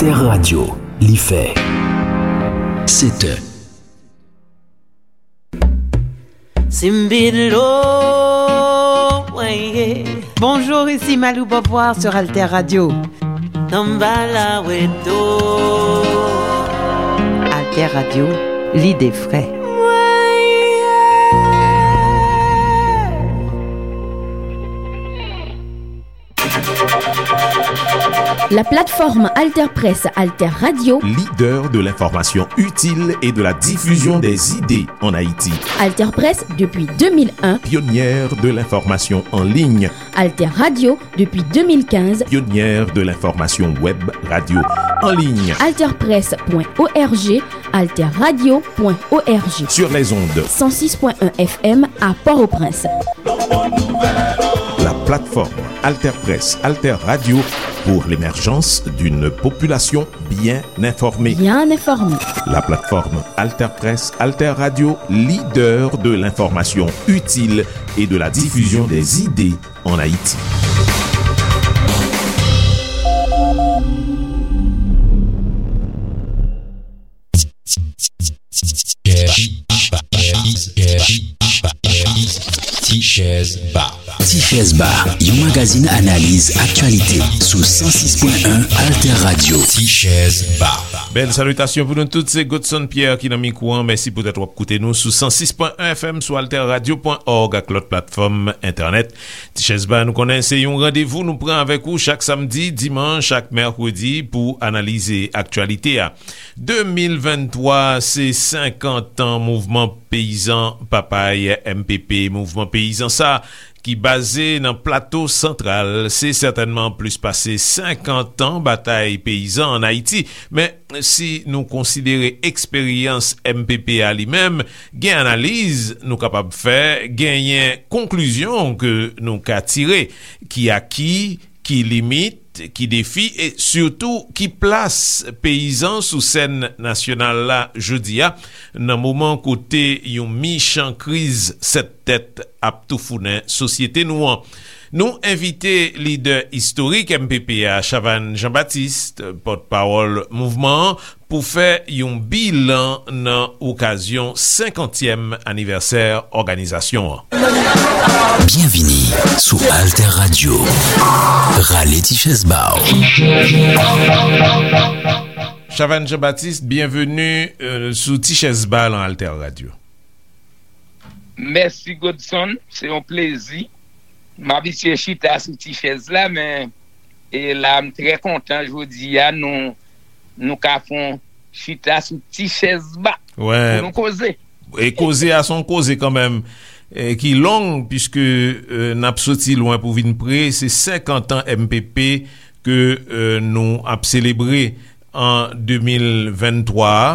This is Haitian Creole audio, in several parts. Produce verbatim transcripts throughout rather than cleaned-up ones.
Alter Radio, li fè sèt è. Simbilo, weye. Bonjour, ici Malou Beauvoir sur Alter Radio. Tambala weto. Alter Radio, l'idée frais. La plateforme Alter Presse, Alter Radio. Leader de l'information utile et de la diffusion des idées en Haïti. Alter Presse depuis deux mille un. Pionnière de l'information en ligne. Alter Radio depuis deux mille quinze. Pionnière de l'information web radio en ligne. Alter Presse point O R G, Alter Radio point O R G. Sur les ondes. Cent six point un F M à Port-au-Prince. La plateforme Alter Presse, Alter Radio pour l'émergence d'une population bien informée. Bien informée. La plateforme Alter Presse, Alter Radio, leader de l'information utile et de la diffusion des idées en Haïti. Ti Chèz Ba. Ti Chèz Ba, yon magazin analiz aktyalite sou san sis pwen en Alter Radio. Ti Chèz Ba. Bèl salitasyon pou nou tout, se Godson Pierre ki nan mikwo an. Mèsi poutèt w ap koute nou sou san sis pwen en F M, sou alter radio pwen org ak lòt platfòm entènèt. Ti Chèz Ba, nou konnen se yon randevou nou pran avèk ou chak samdi, dimanch ak mèkredi pou analize aktyalite a. De mil venntwa, se senkant an mouvman peyizan Papay, M P P. Mouvman peyizan sa ki baze nan Plato Santral, se sètènman plis pase senkant an batay peyizan ann Ayiti. Men, si nou konsidere eksperyans M P P a li menm, gen analiz nou kapab fè, genyen konklizyon ke nou ka tire, ki aki, ki limit, ki defi e sitou ki plas peyizan sou sèn nasyonal la jodi a, nan moman kote yon michan kriz sèt tèt ap toufounen sosyete nou an. Nou envite lidè istorik M P P a, Chavannes Jean-Baptiste, pòtpawòl mouvman an, pou fè yon bilan nan okazyon senkantyèm anivèsè òganizasyon an. Byenvini sou Alter Radio. Rale ti chèz ba w. Chavannes Jean-Baptiste, byenveni, euh, sou Ti Chèz Ba nan Alter Radio. Mèsi, Godson. Se yon plezi. M abitye chita sou ti chèz la, men, e la, m trè kontan jodi a, nou, nou ka fè yon chita sou ti chèz ba. Wè. Pou nou koze. E koze a, se yon koze kanmenm, e ki long, piske, e, n ap soti lwen pou vin pre. Se senkant an M P P ke, e, nou ap selebre an de mil venntwa a.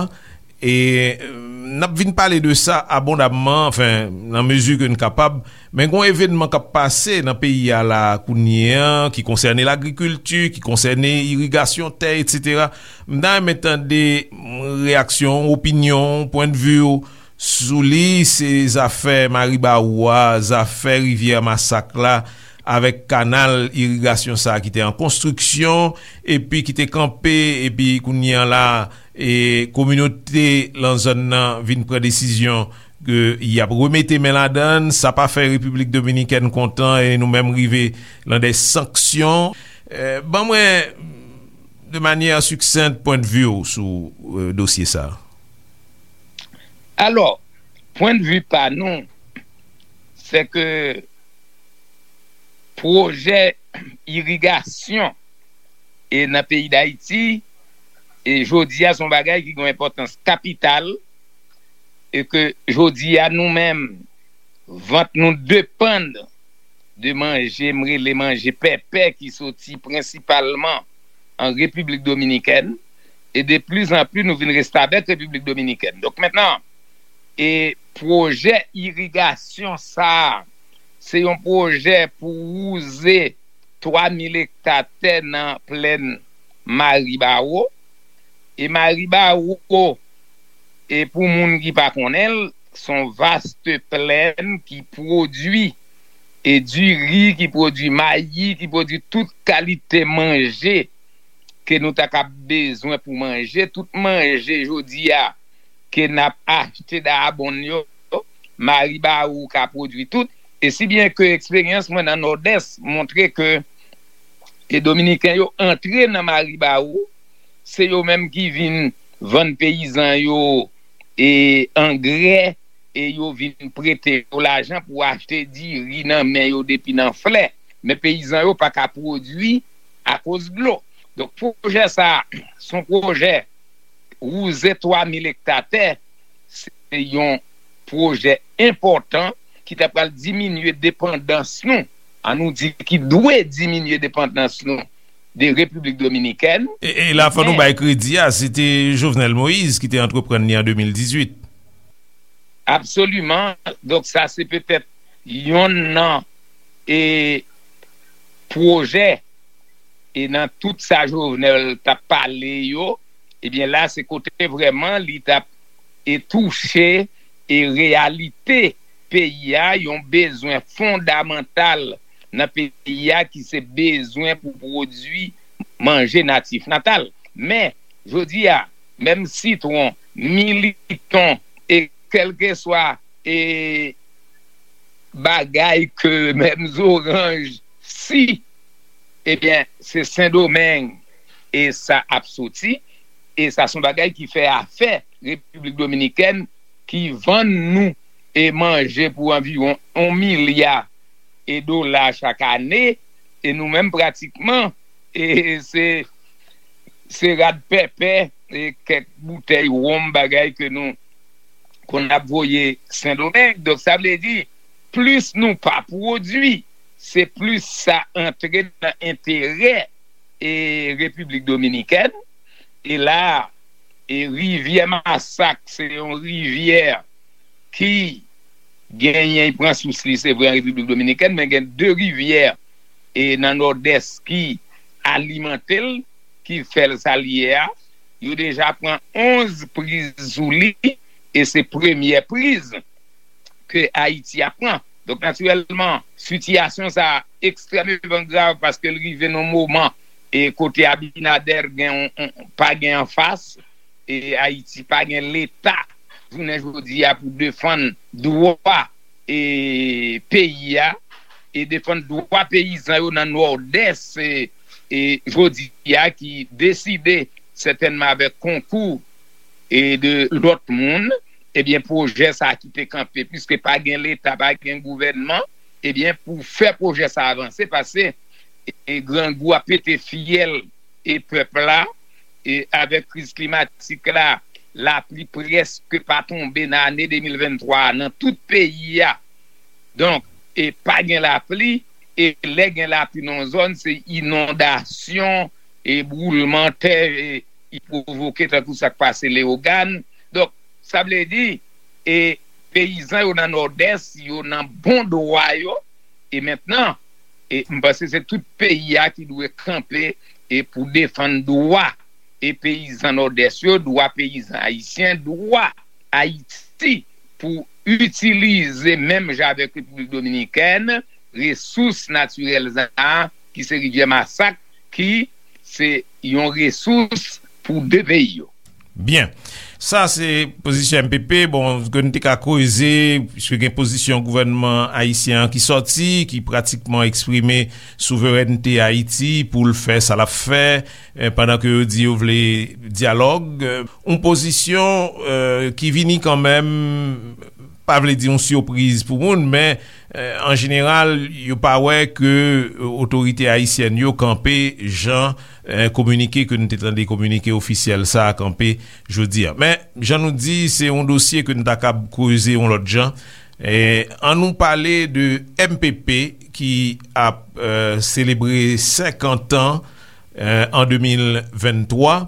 E, e, n ap vin pale de sa abondamman, anfen, nan mezi ke n kapab. Men gon evènman k ap pase nan peyi a la kounye a, ki konsène lagrikilti, ki konsène irigasyon tè, etsetera. M ta renmen tande, mm, reyaksyon w, opinyon w, pwendvi w sou li. Se zafè Maribawou a, zafè Rivyè Masak la, avèk kanal irigasyon sa a ki te an konstriksyon, epi ki te kanpe, epi kounye a la, e kominote lan zòn nan vin pran desizyon ke y ap remete men ladan l. Sa pa fè Repiblik Dominikèn kontan e nou menm rive lan de sanksyon. E, ban mwen, de manyè siksent, pwendvi w sou, e, dosye sa a. Alò, pwendvi pa nou, se ke pwojè irigasyon e nan peyi Dayiti, e jodi a, se yon bagay ki gen yon enpòtans kapital, e ke jodi a, nou menm, vant nou depann de manje, m rele manje pèpè, ki soti prensipalman an Repiblik Dominikèn, e de pli zan pli, nou vin reste avèk Repiblik Dominikèn. Donk, mentnan, e pwojè irigasyon sa a, se yon pwojè pou wouze twa mil ekta tè nan plèn Maribawo. E Maribawo, e pou moun ki pa konnen l, se yon vaste plèn ki pwodui, e diri, ki pwodui mayi, ki pwodui tout kalite manje ke nou ta kab bezwen pou manje, tout manje jodi a ke n ap achte Dayabonn yo, Maribawou ka pwodui tout. E si byen ke eksperyans mwen nan Nòdès montre ke e Dominiken yo antre nan Maribawou, se yo menm ki vin vann peyizan yo e angrè, e yo vin prete yo lajan pou achte diri nan men yo depi nan flè. Men peyizan yo pa ka pwodui akoz dlo. Donk, pwojè sa a, se yon pwojè wouze twa mil ekta tè, se yon pwojè enpòtan ki ta pral diminye depandans nou, an nou di ki dwe diminye depandans nou de Repiblik Dominikèn. E, e la, fò nou Men bay kredi a, se te Jovenel Moïse ki te antreprann li an de mil dizuit. Absoliman. Donk, sa se petèt yonn nan e pwojè e nan tout sa Jovenel t ap pale yo, ebyen la se kote vrèman li t ap e touche e reyalite peyi a, yon bezwen fondamantal nan peyi a ki se bezwen pou pwodui manje natif natal. Men, jodi a, menm sitwon, militon, e kèlkeswa e bagay ke menm zoranj, si, ebyen, se Sendomeng e sa ap soti, e sa se yon bagay ki fè afè Repiblik Dominikèn, ki vann nou e manje pou anviwon yon milya e dola chak ane, e nou menm pratikman e se se rad pèpè e kèk boutèy wonm bagay ke nou konn ap voye Sendomeng. Donk, sa vle di, plis nou pa pwodui, se plis sa antre nan enterè e Repiblik Dominikèn. E la, e rivyè Masak, se yon rivyè ki genyen, li pran sous li, se vre, an Repiblik Dominikèn, men gen de rivyè e nan Nòdès ki alimante l, ki fè l sa l ye a. Yo deja pran onz priz sou li, e se premyè priz ke Ayiti ap pran. Donk, natirèlman, sitiyasyon sa a ekstrèmeman grav paske l rive nan moman e kote Abinader gen yon, yon, pa gen anfas, e Ayiti pa gen Leta jounen jodi a pou defann dwa e peyi a, e defann dwa peyizan yo nan Nòdès, e, e jodi a ki deside sètènman avèk konkou e de lòt moun, ebyen, pwojè sa a ki te kanpe, piske pa gen Leta, pa gen gouvènman, ebyen, pou fè pwojè sa a avanse, paske e grangou ap pete fyèl e pèp la, e avèk kriz klimatik la, lapli prèske pa tonbe nan ane de mil venntwa a nan tout peyi a. Donk, e pa gen lapli, e lè gen lapli nan yon zòn, se inondasyon, e boulman tè, e, i pwovoke tankou sa k pase Leyogàn. Donk, sa vle di, e peyizan yo nan Nòdès, yo nan bon dwa yo, e mentnan, e m panse se tout peyi a ki dwe kanpe e pou defann dwa e peyizan Nòdès yo, dwa peyizan ayisyen, dwa Ayiti pou itilize menm jan avèk Repiblik Dominikèn, resous natirèl sa a, ki se rivyè Masak, ki se yon resous pou de peyi yo. Byen. Sa se pozisyon M P P, bon, ke n te ka koze, piske gen pozisyon gouvènman ayisyen an ki sòti, ki pratikman eksprime souverènte Ayiti pou l fè sa l ap fè, eh, pandan ke yo di yo vle dyalòg. Eh, yon pozisyon, eh, ki vini kanmenm, pa vle di yon sipriz pou moun, men, eh, an jeneral, yo pa wè ke, eh, otorite ayisyèn yo kanpe jan, eh, kominike ke nou te tande, kominike ofisyèl sa a kanpe jodi a. Men, jan nou di, se yon dosye ke nou ta kab kreze yon lòt jan. Eh, ann nou pale de M P P ki ap, eh, selebre senkant an, eh, an de mil venntwa.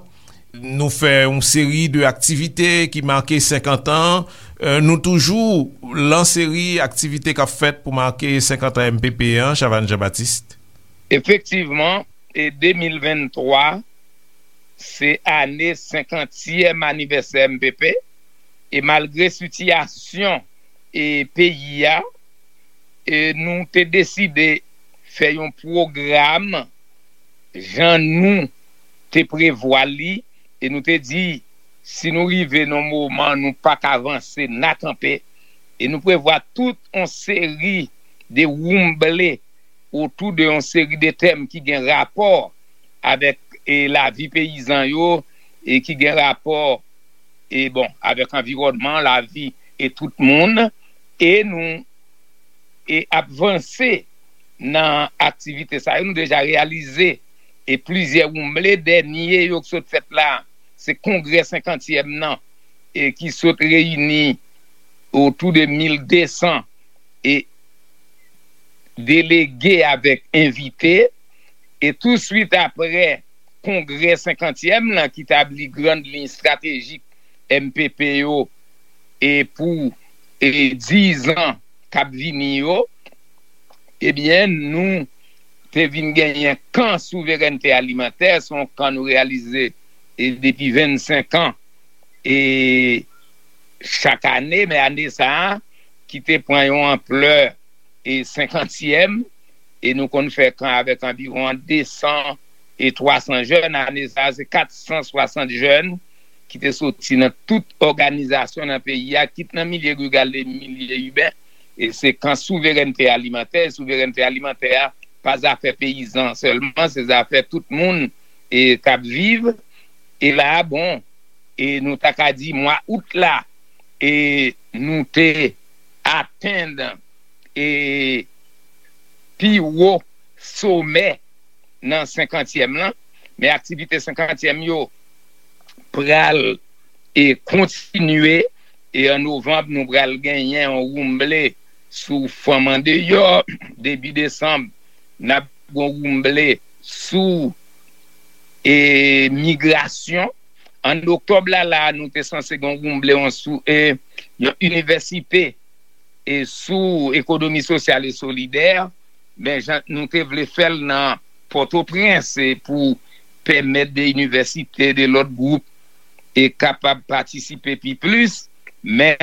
Nou fè yon seri de aktivite ki make senkant an. Eh, nou toujou lan seri aktivite k ap fèt pou make senkant an M P P an, Chavannes Jean-Baptiste. Efektivman, e de mil venntwa, se ane senkantyèm anivèsè M P P, e malgre sitiyasyon e peyi a, e nou te deside fè yon pwogram jan nou te prevwa li, e nou te di, si nou rive nan moman, nou pa ka vanse, n a kanpe, e nou prevwa tout yon seri de woumble otou de yon seri de tèm ki gen rapò avèk, e, lavi peyizan yo, e ki gen rapò, e, bon, avèk anviwònman, lavi e tout moun, e nou, e ap vanse nan aktivite sa yo. Nou deja reyalize, e, plizyè woumble. Dènye yo ki sot fèt la, se kongrè senkantyèm nan, e ki sot reyini otou de mil de san, e delege avèk envite, e touswit apre kongrè senkantyèm lan ki tabli grann liy estratejik M P P yo, e pou, e, diz an k ap vini yo, ebyen, nou te vin genyen kan souverènte alimantè, se yon kan nou reyalize, e, depi vennsenk an, e, chak ane, men ane sa a, ki te pran yon anplè, e, senkantyèm, e nou konn fè kan avèk anviwon de san e twa san jèn. Ane sa a, se kat san swasant jèn ki te soti nan tout òganizasyon nan peyi a, kit nan milye riral e milye iben. E se kan souverènte alimantè. Souverènte alimantè a pa zafè peyizan sèlman, se zafè tout moun, e, k ap viv. E la, bon, e nou ta ka di mwa out la, e nou te atenn, e, pi wo somè nan senkantyèm lan, men aktivite senkantyèm yo pral, e, kontinye, e an novanm, nou pral genyen yon woumble sou fanm andeyò, debi desanm, n ap gen yon woumble sou, e, migrasyon. An oktòb la, la, nou te sanse gen yon woumble yon sou, e, yon inivèsite, e, sou ekonomi sosyal e solidè. Men jan nou te vle fè l nan Pòtoprens, e, pou pèmèt de inivèsite, de lòt gwoup, e, kapab patisipe pi plis, men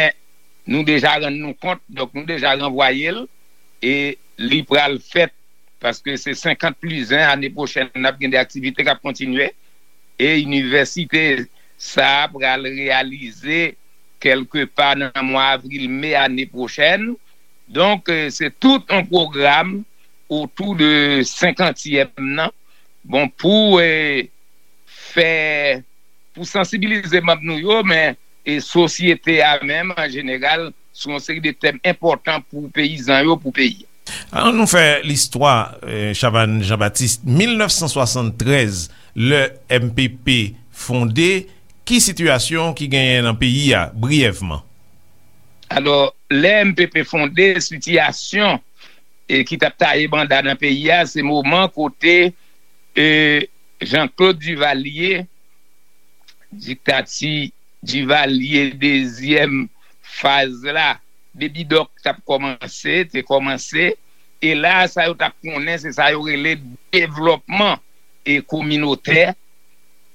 nou deja rann nou kont, donk, nou deja ranvwaye l, e li pral fèt, paske se senkant plis en, ane pwochèn, n ap gen de aktivite k ap kontinye, e inivèsite sa a pral reyalize kèlkepa nan mwa avril, me ane pwochèn. Donk, e, se tout yon pwogram otou de senkantyèm nan. Bon, pou, e, fè, pou sansibilize manm nou yo, men, e, sosyete a menm, an jeneral, sou yon seri de tèm enpòtan pou peyizan yo, pou peyi a. An nou fè listwa, e, Chavannes Jean-Baptiste, mil nèf san swasanntrèz, lè M P P fonde, ki sitiyasyon ki genyen nan peyi a, briyèvman? Alò, lè M P P fonde, sitiyasyon, e, ki t ap taye banda nan peyi a, se moman kote, e, Jean-Claude Duvalier, diktati Duvalier dezyèm faz la, Baby Doc t ap kòmanse, te kòmanse, e la, sa yo t ap konnen, se sa yo rele devlòpman e kominotè,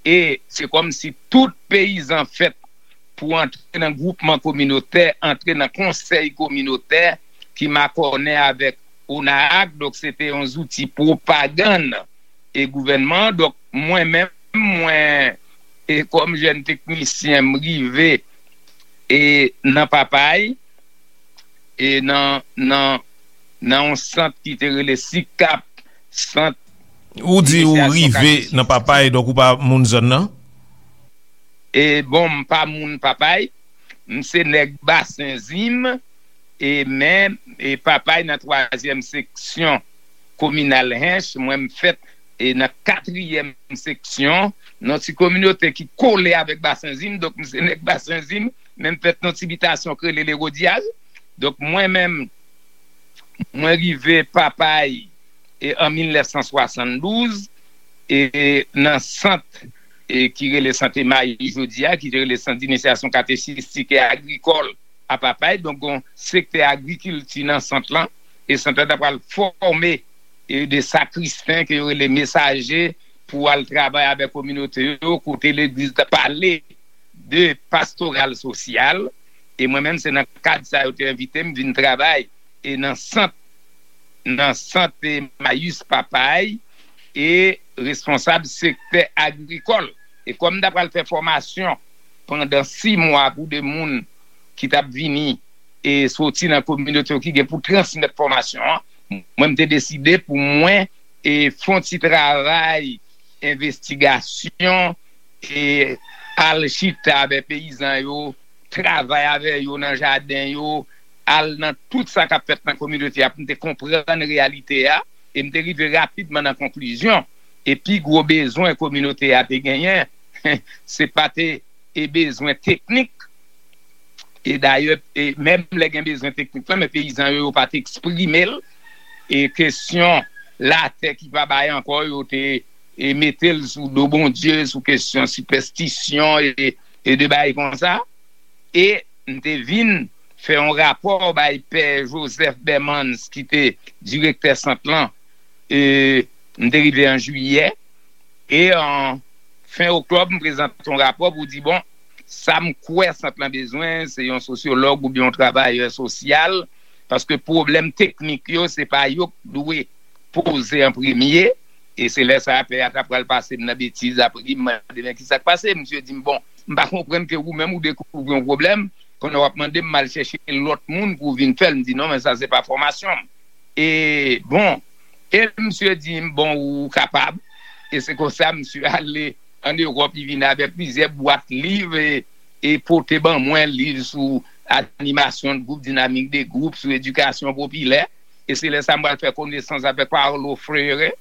e se kòmsi tout peyizan fèt pou antre nan gwoupman kominotè, antre nan konsèy kominotè ki makònen avèk ONAAC, donk se te yon zouti pwopagann e gouvènman an. Donk, mwen menm, mwen, e kòm jèn teknisyen, m rive, e nan Papay, e nan, nan, nan yon sant ki te rele sikap, sant Ou di ou inisiyasyon rive Katechis. Nan Papay, donk ou pa moun zòn nan? E bon, m pa moun Papay, m se nèg Basen Zim, e men, e Papay nan twazyèm seksyon kominal Hench, mwen m fèt, e nan katriyèm seksyon, nan ti kominote ki kole avèk Basen Zim, donk m se nèg Basen Zim, men m fèt nan ti bitasyon k rele Lewodyal. Donk mwen menm, mwen rive Papay, e an mil nèf san swasanndouz, e nan sant, e ki rele Sant Emayi jodi a, ki te rele Sant d'Inisyasyon Katechistik e Agrikòl a Papay. Donk, gon sektè agrikilti nan sant lan, e sant lan ta pral fòme, e de sakristen ke yo rele mesaje pou al travay avèk kominote yo, kote legliz ta pale de pastoral sosyal, e mwen menm se nan kad sa yo te envite m vin travay, e nan sant, nan sant Emayis Papay, e responsab sektè agrikòl. E kòm m ta pral fè fòmasyon pandan sis mwa pou de moun ki t ap vini e soti nan kominote yo ki gen pou transmèt fòmasyon an, mwen, m te deside pou mwen e fè yon ti travay envestigasyon e al chita avè peyizan yo, travay avè yo nan jaden yo, al nan tout sa k ap fèt nan kominote a pou m te konprann reyalite a, e m te rive rapidman nan konklizyon. E pi gwo bezwen kominote a te genyen, se pa te e bezwen teknik. E dayè, e menm lè gen bezwen teknik lan, men peyizan yo, yo pa t eksprime l. E kesyon latè ki pa bay ankò, yo te e mete l sou do Bondye, sou kesyon sipèstisyon e, e de bagay konsa. E m te vin fè yon rapò bay Pè Joseph Bermans, ki te direktè sant lan. E m te rive an jiyè. E an fen oktòb, m prezante yon rapò pou di, bon, sa m kwè sant lan bezwen, se yon sosyològ oubyen yon travayè sosyal, paske pwoblèm teknik yo, se pa yo k dwe poze an premye. E se lè sa a, pè a ta pral pase m nan betiz, apre m mande, men ki sa k pase? Misye di m, bon, m pa konprann ke ou menm ou dekouvri yon pwoblèm, kounye a w ap mande m, m al chèche lòt moun pou vin fè l. M di, non, men sa se pa fòmasyon m. E, bon, e misye di m, bon, ou kapab. E se konsa, misye ale ann Ewòp, li vin avèk plizyè bwat liv e, e pote ban mwen liv sou animasyon de gwoup, dinamik de gwoup, sou edikasyon popilè. E se lè sa a m pral fè konesans avèk Paulo Freire.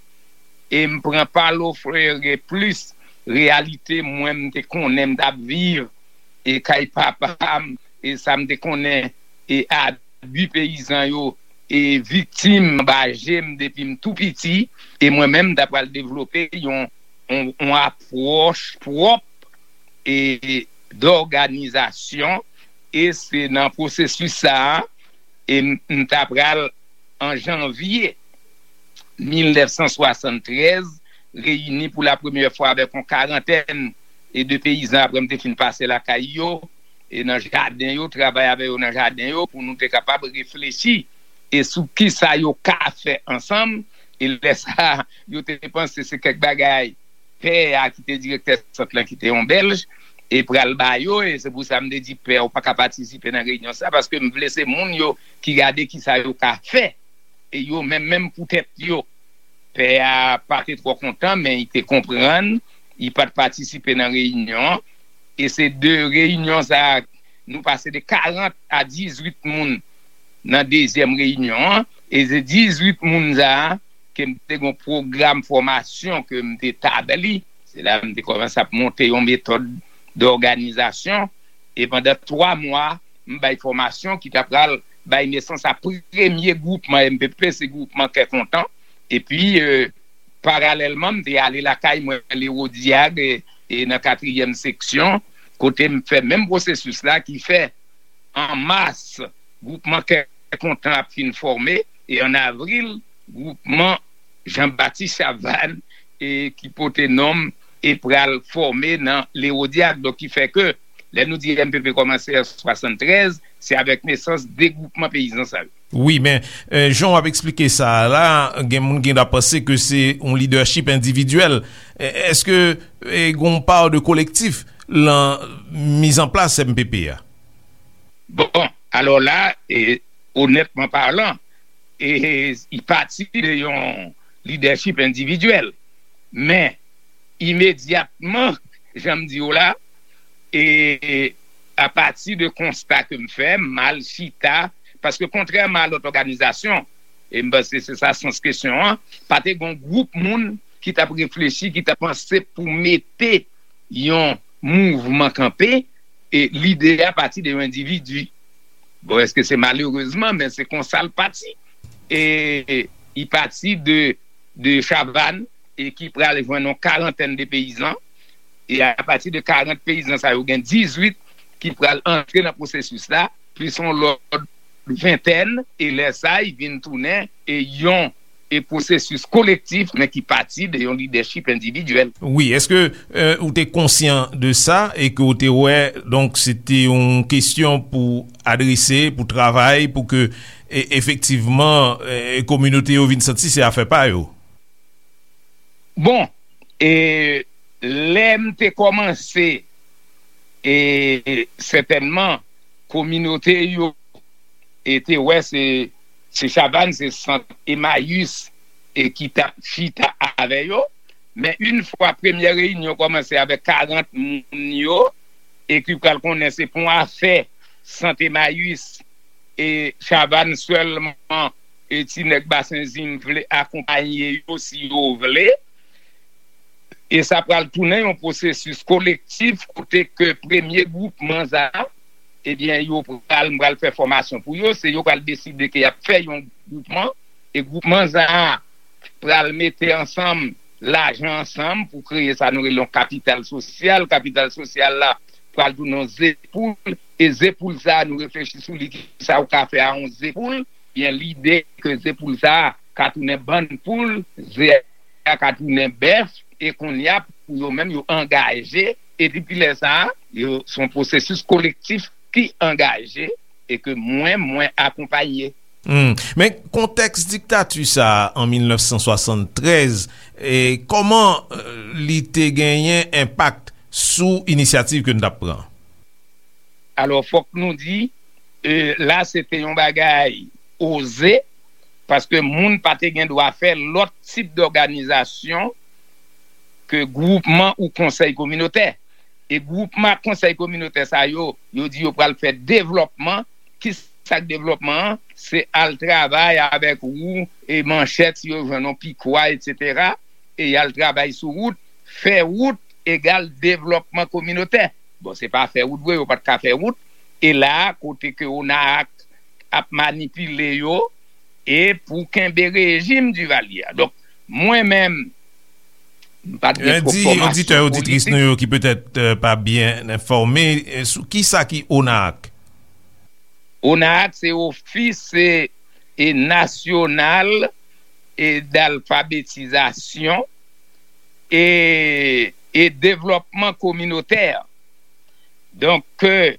E m pran Paulo Freire plis reyalite mwen m te konnen m t ap viv e kay papa m, e sa m te konnen, e abi peyizan yo e viktim anba je m depi m tou piti. E mwen menm, m ta pral devlope yon, yon, yon apwòch pwòp e dòganizasyon. E se nan pwosesis sa a, e m, m ta pral, an janvye mil nèf san swasanntrèz, reyini pou la premyè fwa avèk yon karantèn e de peyizan, apre m te fin pase lakay yo, e nan jaden yo, travay avè yo nan jaden yo, pou nou te kapab reflechi e sou kisa yo ka fè ansanm. E lè sa a, yo te panse se kèk bagay pè a ki te direktè sant lan, ki te yon bèlj, e pral ba yo. E se pou sa m te di pè a, ou pa ka patisipe nan reyinyon sa, paske m vle se moun yo ki gade kisa yo ka fè, e yo menm, menm pou tèt yo. Pè a pa te twò kontan, men li te konprann, li pa t patisipe nan reyinyon an. E se de reyinyon sa a, nou pase de karant a dizwit moun nan dezyèm reyinyon an. E se dizwit moun sa a ke m te gen yon pwogram fòmasyon ke m te tabli. Se la m te kòmanse ap monte yon metòd dòganizasyon. E pandan twa mwa, m bay fòmasyon ki ta pral bay nesans a premye gwoupman M P P, se gwoupman Kè Kontan. Epi, e, paralèlman, m te ale lakay mwen, Lewodyag, e, e nan katriyèm seksyon, kote m fè menm pwosesis la, ki fè an mas, gwoupman Kè Kontan ap fin fòme, e an avril, gwoupman Jean Baptiste Chavannes, e ki pote non m, e pral fòme nan Lewodyag. Donk, ki fè ke, lè nou di M P P kòmanse an swasanntrèz, se avèk nesans de gwoupman peyizan sa yo. Wi, men, e, jan w ap eksplike sa a la, gen moun gen dwa panse ke se yon lidèchip endividyèl. E, èske, e, gen yon pa de kolektif lan mizanplas M P P a? Bon, alò la, e, onètman palan, e, li pati de yon lidèchip endividyèl. Men, imedyatman, jan m di w la, e, apati de konsta ke m fè, m al chita, paske kontrèman a lòt òganizasyon, e m panse se sa sans kesyon an, pa te gen yon gwoup moun ki t ap reflechi, ki t ap panse pou mete yon mouvman kanpe, e lide a pati de yon endividi. Bon, èske se malerezman, men se konsa l pati. E li pati de, de Chavannes, e ki pral jwenn yon karantèn de peyizan. E apati de karant peyizan sa yo, gen dizwit ki pral antre nan pwosesis la, plis yon lòt ventèn, e lè sa a, li vin tounen, e yon, e pwosesis kolektif, men ki pati de yon lidèchip endividyèl. Wi, èske, e, ou te konsyan de sa e ke ou te wè, donk, se te yon kesyon pou adrese, pou travay, pou ke, e, efektivman, e, kominote yo vin santi se afè pa yo? Bon, E lè m te kòmanse, e sètènman, kominote yo e te wè se, se Chavannes, se Sant Emayis e ki t ap chita avè yo. Men yon fwa premyè reyinyon kòmanse avèk karant moun yo, e ki pral konnen se pou afè Sant Emayis e Chavannes sèlman, e ti nèg Basen Zim vle akonpaye yo si yo vle. E sa pral tounen yon pwosesis kolektif kote ke premye gwoupman sa a, ebyen, yo pral, m pral fè fòmasyon pou yo, se yo pral deside ke y ap fè yon gwoupman, e gwoupman sa a pral mete ansanm lajan ansanm pou kreye sa nou rele yon kapital sosyal. Kapital sosyal la pral tounen yon zepoul, e zepoul sa a, nou reflechi sou li, ki sa ou ka fè a yon zepoul, byen lide ke zepoul sa a ka tounen bann poul, ze a ka tounen bèf, e kounye a, pou yo menm, yo angaje, e depi lè sa a, yo, se yon pwosesis kolektif ki angaje, e ke mwen, mwen akonpaye. Hmm. Men kontèks diktati sa a an mil nèf san swasanntrèz, e kòman, eh, li te genyen enpak sou inisyativ ke n t ap pran? Alò, fòk nou di, eh, la se te yon bagay oze, paske moun pa te gen dwa fè lòt tip dòganizasyon ke gwoupman ou konsèy kominotè. E gwoupman ak konsèy kominotè sa yo, yo di yo pral fè devlòpman. Ki sa k devlòpman an? Se al travay avèk wou e manchèt, si yo jwenn yon pikwa, etsetera. E y al travay sou wout. Fè wout egal devlòpman kominotè. Bon, se pa fè wout vre, yo pa t ka fè wout. E la, kote ke ONAAC ap manipile yo, e pou kenbe rejim Duvalier a. Donk, mwen menm, m pa t gen twòp fòmasyon politik. Di oditè, oditris nou yo ki petèt, eh, pa byen enfòme, eh, sou ki sa ki ONAAC? ONAAC se Office, eh, National, eh, d'Alphabétisation et, et Développement Communautaire. Donk, ke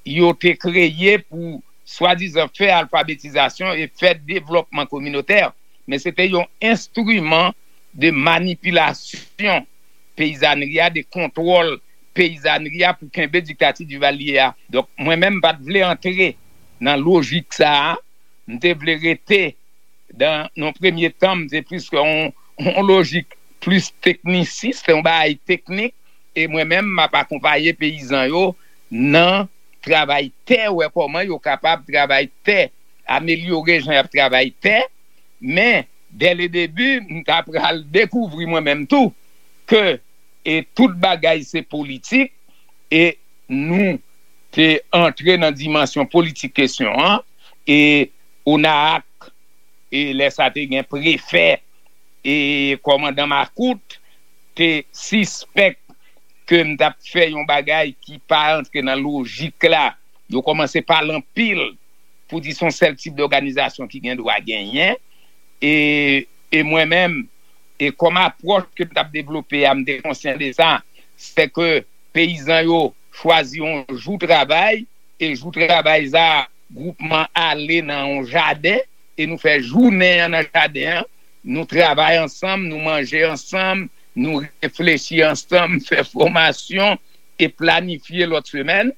yo te kreye pou swadizan fè alfabetizasyon e fè devlòpman kominotè, men se te yon enstriman de manipilasyon peyizanri a, de kontwòl peyizanri a pou kenbe diktati Duvalier a. Donk, mwen menm, m pa t vle antre nan lojik sa a. M te vle rete dan, nan premye tan, m te plis yon, yon lojik plis teknisis, se yon bagay teknik, e mwen menm, m ap akonpaye peyizan yo nan travay tè, wè kòman yo kapab travay tè, amelyore jan y ap travay tè, men, dè le debi, m ta pral dekouvri mwen menm tou, ke, e tout bagay se politik, e nou te antre nan dimansyon politik kesyon an, e ONAAC, e lè sa te gen prefè, e kòmandan Makout, te sispèk ke m t ap fè yon bagay ki pa antre nan lojik la. Yo kòmanse pale anpil pou di se yon sèl tip dòganizasyon ki gen dwa genyen. E, e mwen menm, e kòm apwòch ke m t ap devlope a, m te konsyan de sa, se ke peyizan yo chwazi yon jou travay, e jou travay sa, gwoupman ale nan yon jaden, e nou fè jounen an nan jaden an, nou travay ansanm, nou manje ansanm, nou reflechi ansanm, fè fòmasyon, e planifye lòt semèn.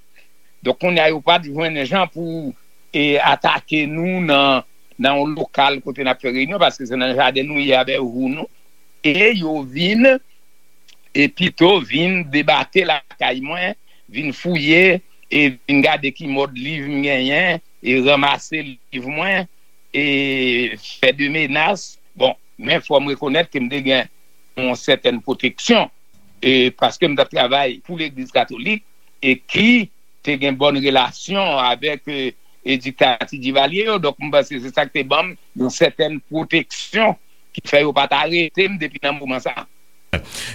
Donk, kounye a, yo pa t jwenn jan pou, e, atake nou nan, nan yon lokal kote n ap fè reyinyon, paske se nan jaden nou ye avèk jou nou. E yo vin, e pito vin debake lakay mwen, vin fouye, e vin gade ki mòd liv m genyen, e ranmase liv mwen, e fè de menas. Bon, men fò m rekonèt ke m te gen yon sètèn pwoteksyon, e paske m t ap travay pou Legliz Katolik, e ki te gen bòn relasyon avèk, e, e diktati Divalye yo. Donk, m panse se sa k te ban m yon sètèn pwoteksyon ki fè yo pa t arete m depi nan moman sa a.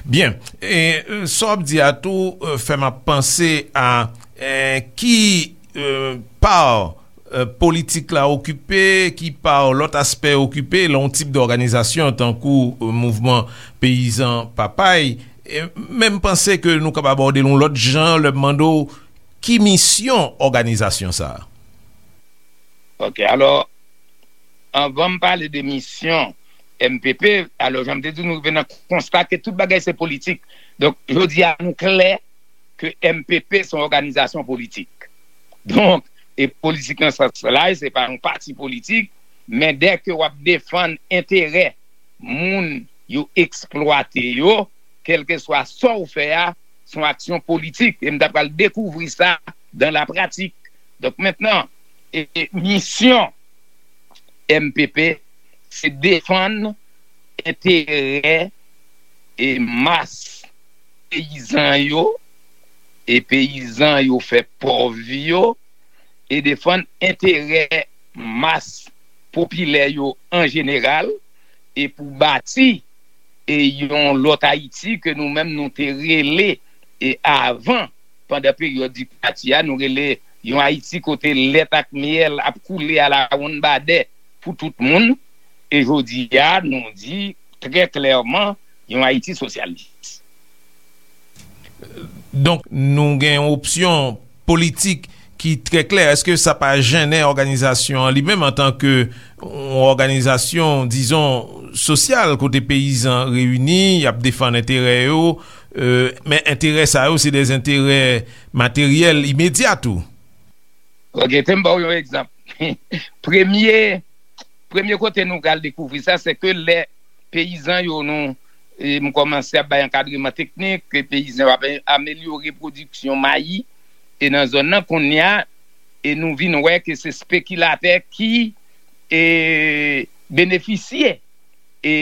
Byen. E, e, sa w ap di a tou, e, fè m ap panse a, e, ki, e, pa, e, politik la okipe, ki pa lòt aspè okipe, lan yon tip dòganizasyon tankou, e, mouvman peyizan Papay. E, men m panse ke nou kapab abòde l yon lòt jan, lè m mande w ki misyon òganizasyon sa a. Ok, alò, anvan m pale de misyon, M P P. Alò, jan m te di, nou rive nan konsta ke tout bagay se politik. Donk, jodi a, nou klè ke M P P se yon òganizasyon politik. Donk, e politik nan sans la, se pa yon pati politik, men dèke w ap defann enterè moun yo eksplwate yo, kèlkeswa sa w fè a, se yon aksyon politik. E m ta pral dekouvri sa dan la pratik. Donk, mentnan, e, e, misyon M P P, se defann enterè e mas peyizan yo, e peyizan yo fè pòv yo, e defann enterè mas popilè yo an jeneral, e pou bati e yon lòt Ayiti ke nou menm nou te rele e avan, pandan peryòd diktati a, nou rele yon Ayiti kote lèt ak myèl ap koule alawonnbadè pou tout moun. E jodi a, nou di trè klèman, yon Ayiti sosyalis. Donk, nou gen yon opsyon politik ki trè klè. Èske sa pa jennen òganizasyon an li menm antanke yon òganizasyon, dizon, sosyal, kote peyizan reyini, y ap defann enterè yo, e, men enterè sa yo, se de enterè materyèl imedya tou? Ok, te m ba w yon egzanp. Premye, premye kote nou pral dekouvri sa, se ke lè peyizan yo nou, e, m kòmanse ap bay ankadreman teknik, ke peyizan yo ap amelyore pwodiksyon mayi, e nan zòn nan kounye a, e nou vin wè ke se spekilatè ki, e, benefisye, e,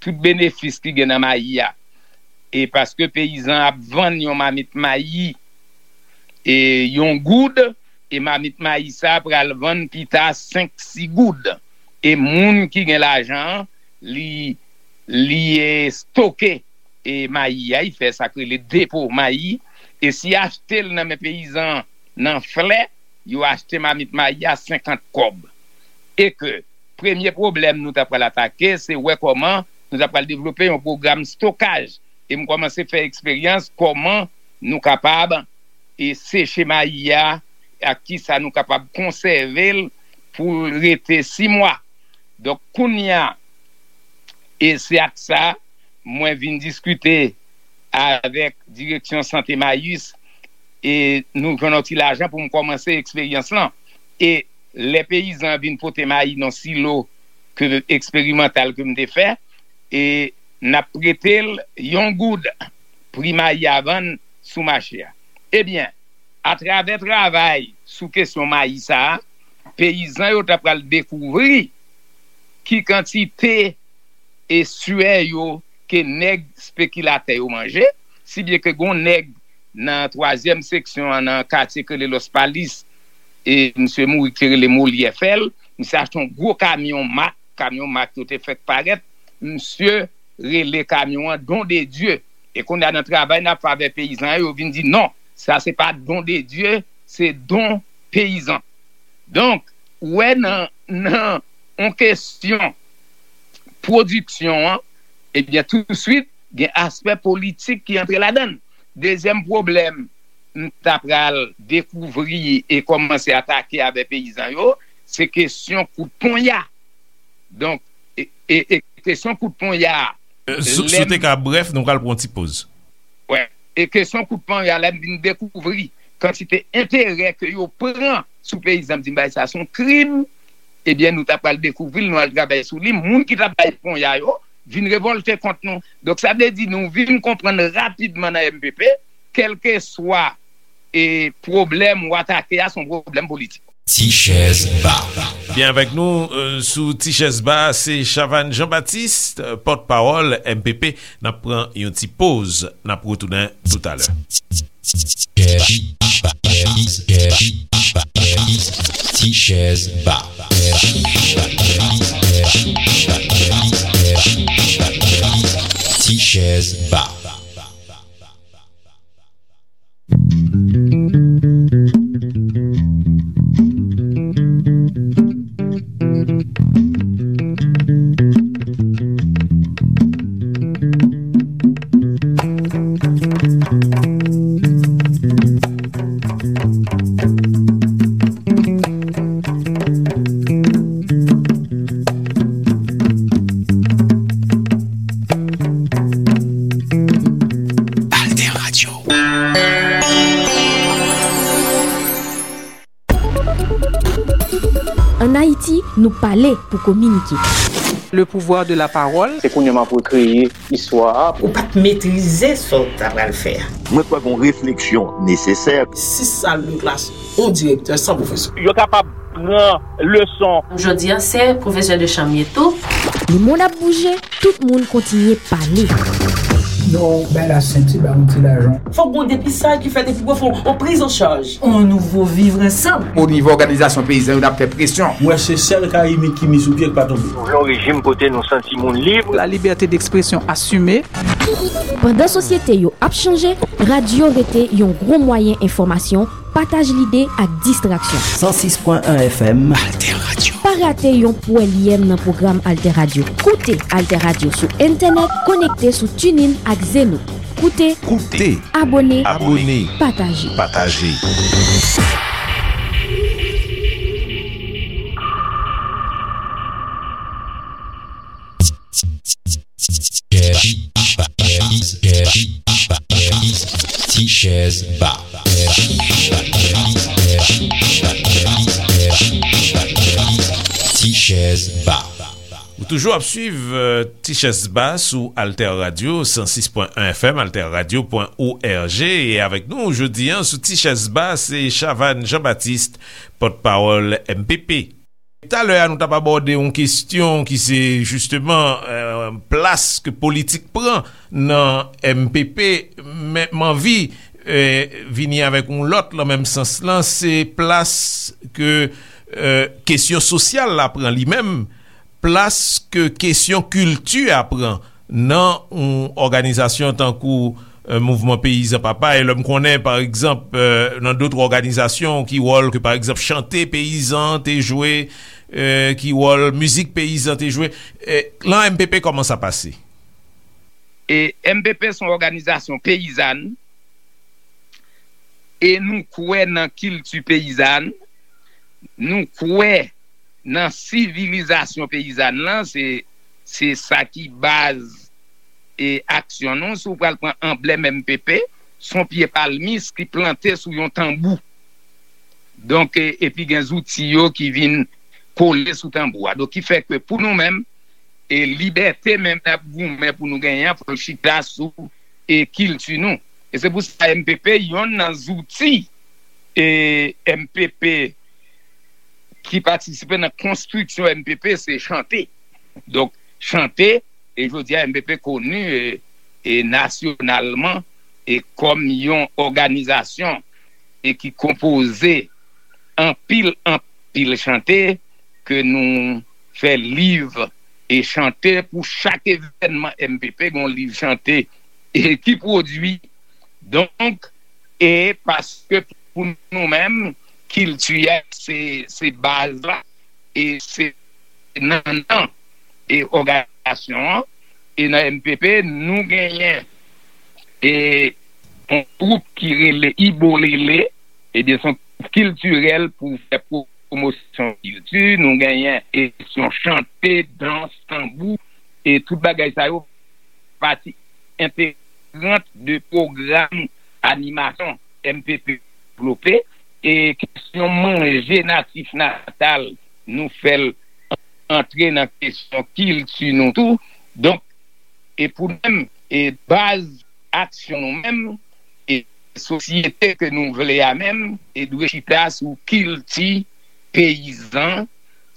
tout benefis ki gen nan mayi a. E paske peyizan ap vann yon mamit mayi, e, yon goud, e mamit mayi sa pral vann pita senk, sis goud. E moun ki gen lajan an, li, li, e, stoke, e, mayi a, li fè sa k rele depo mayi, e si achte l nan men peyizan nan flè, yo achte mamit mayi a senkant kòb. E ke premye pwoblèm nou ta pral atake, se wè kòman nou ta pral devlope yon pwogram stokaj. E m kòmanse fè eksperyans kòman nou kapab, e, seche mayi a, ak kisa nou kapab konsève l pou l rete sis mwa. Donk, kounye a, e se ak sa, mwen vin diskite avèk direksyon sante Mayis, e nou jwenn yon ti lajan pou m kòmanse eksperyans lan. E lè peyizan vin pote mayi nan silo ke, eksperimantal ke m te fè, e n ap prete l yon goud, pri mayi a vann sou mache a. Ebyen, atravè travay sou kesyon mayi sa a, peyizan yo ta pral dekouvri ki kantite e swè yo ke nèg spekilatè yo manje, si byen ke gon nèg nan twazyèm seksyon an, nan katye k rele Los Palis, e misye mouri ki te rele Molyè Fèl, misye achte yon gwo kamyon mak, kamyon mak yo te fèk parèt, misye rele kamyon an Don de Dieu. E kounye a nan travay n ap fè avèk peyizan yo, yo vin di non, sa se pa Don de Dieu, se Don Peyizan. Donk, ou wè nan, nan yon kesyon pwodiksyon an, ebyen, touswit, gen aspè politik ki antre ladan l. Dezyèm pwoblèm m ta pral dekouvri e kòmanse atake avèk peyizan yo, se kesyon kout ponya. Donk, e, e, e kesyon kout ponya a, Si w te ka brèf, nou pral pran yon ti poz. Wè. E kesyon kout ponya la, m vin dekouvri kantite enterè ke yo pran sou peyizan, m di m bagay sa se yon krim. Ebyen, nou ta pral dekouvri l, nou al travay sou li. Moun ki t ap bay ponya yo vin revòlte kont nou. Donk, sa vle di nou vin konprann rapidman nan M P P, kèlkeswa e pwoblèm ou atake a, se yon pwoblèm politik. Ti chèz ba. Byen avèk nou sou Ti chèz ba, se Chavannes Jean Baptiste, pòtpawòl M P P. N ap pran yon ti poz, n ap retounen toutalè. Ti chèz ba. Ti chèz ba. Nou pale pou kominike. Le pouvoir de la parole. Se kounye a m ap rekreye istwa a. Ou pa t metrize sa w ta pral fè a. Mwen kwè gen yon refleksyon nesesè. Sis sal de klas, yon direktè san pwofesè. Yo kapab pran leson. Jodi a, se pwofesè de chanm ye tou. Lemonn ap bouje, tout moun kontinye pale. Non, bay la senti, ba yon ti lajan. Fòk gon depisaj ki fèt epi pou fè yon priz an chaj. On nouvo vivre ansanm. O nivo òganizasyon peyizan yo, n ap fè presyon. Mwen se sèl Kayimit ki mi sou pye k pa tonbe. Nou vle yon rejim kote nou santi moun lib. La liberté d'expression assumée. Pandan sosyete yo ap chanje, radyo rete yon gwo mwayen enfòmasyon, pataj lide ak distraksyon. San sis pwen en F M. Alter Radio. Pa rate yon pwèlyèm nan pwogram Alter Radio. Koute Alter Radio sou entènèt, konekte sou TuneIn ak Zeno. Koute, koute, abone, abone, pataje. Pataje. Ti chèz ba. Ti chèz ba. Ou toujou ap swiv Ti chèz ba sou Alter Radio san sis pwen en F M, alter radio pwen org, e avèk nou jodi a sou Ti chèz ba se Chavannes Jean Baptiste, pòtpawòl M P P. Talè a nou t ap abòde yon kesyon ki se jisteman plas ke politik pran nan M P P, men m anvi vini avèk yon lòt nan menm sans lan, se plas ke kesyon sosyal la pran li menm, plas ke kesyon kilti a pran nan yon òganizasyon tankou Mouvman Peyizan Papa, e lè m konnen pa egzanp nan dòt òganizasyon ki wòl ke pa egzanp chante peyizan te jwe, ki wòl mizik peyizan te jwe, nan M P P kòman sa pase? E M P P se yon òganizasyon peyizàn e nou kwè nan kilti peyizàn, nou kwè nan sivilizasyon peyizàn lan, se se sa ki baz e aksyon nou. Si w pral pran anblèm M P P, se yon pye palmis ki plante sou yon tanbou. Donk, e, epi gen zouti yo ki vin kole sou tanbou a. Donk, ki fè ke pou nou menm, e libète menm n ap goumen pou nou genyen an, fò l chita sou e kilti nou. E se pou sa M P P, yonn nan zouti e M P P ki patisipe nan konstriksyon M P P, se chante. Donk, chante, e jodi a M P P koni e, e nasyonalman e kòm yon òganizasyon e ki konpoze anpil, anpil chante ke nou fè liv e chante pou chak evènman M P P, gen yon liv chante e ki pwodui. Donk, e paske pou nou menm, kilti a se, se baz la, e se nannan e òganizasyon an, e nan M P P, nou genyen e yon gwoup ki rele Ibolele, ebyen, se yon gwoup kiltirèl pou fè pwomosyon kilti. Nou genyen e kesyon chante, dans, tanbou, e tout bagay sa yo pati entegrant de pwogram animasyon M P P devlope. E kesyon manje natif natal, nou fè l antre nan kesyon kilti nou tou. Donk, e pou nou menm, e baz aksyon nou menm, e sosyete ke nou vle a menm, e dwe chita sou kilti peyizan,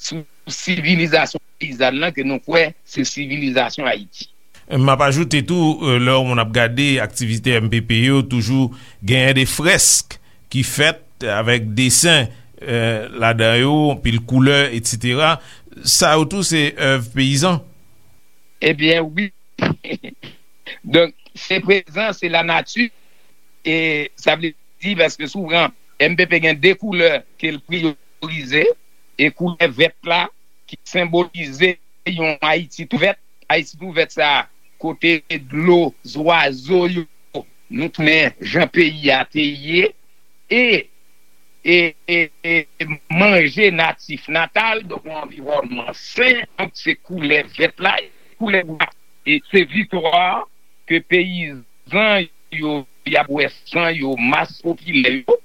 sou sivilizasyon peyizàn lan ke nou kwè se sivilizasyon Ayiti. M ap ajoute tou, lè yon moun ap gade aktivite M P P yo, toujou genyen de frèsk ki fèt avèk desen ladan yo, anpil koulè, etsetera. Sa yo tou se èv peyizan? Ebyen, wi. Donk, se prezan, se lanati. E sa vle di, paske souvan, M P P gen de koulè ke l priyorize, e koulè vèt la, ki senbolize yon Ayiti tou vèt. Ayiti tou vèt sa, kote dlo, zwazo yo, nou tounen jan peyi a te ye, e, e, e, e manje natif natal, donk yon anviwònman sen, donk se koulè vèt la, koulè bwa, e se viktwa ke peyizan yo, y ap wè san yo, mas popilè yo,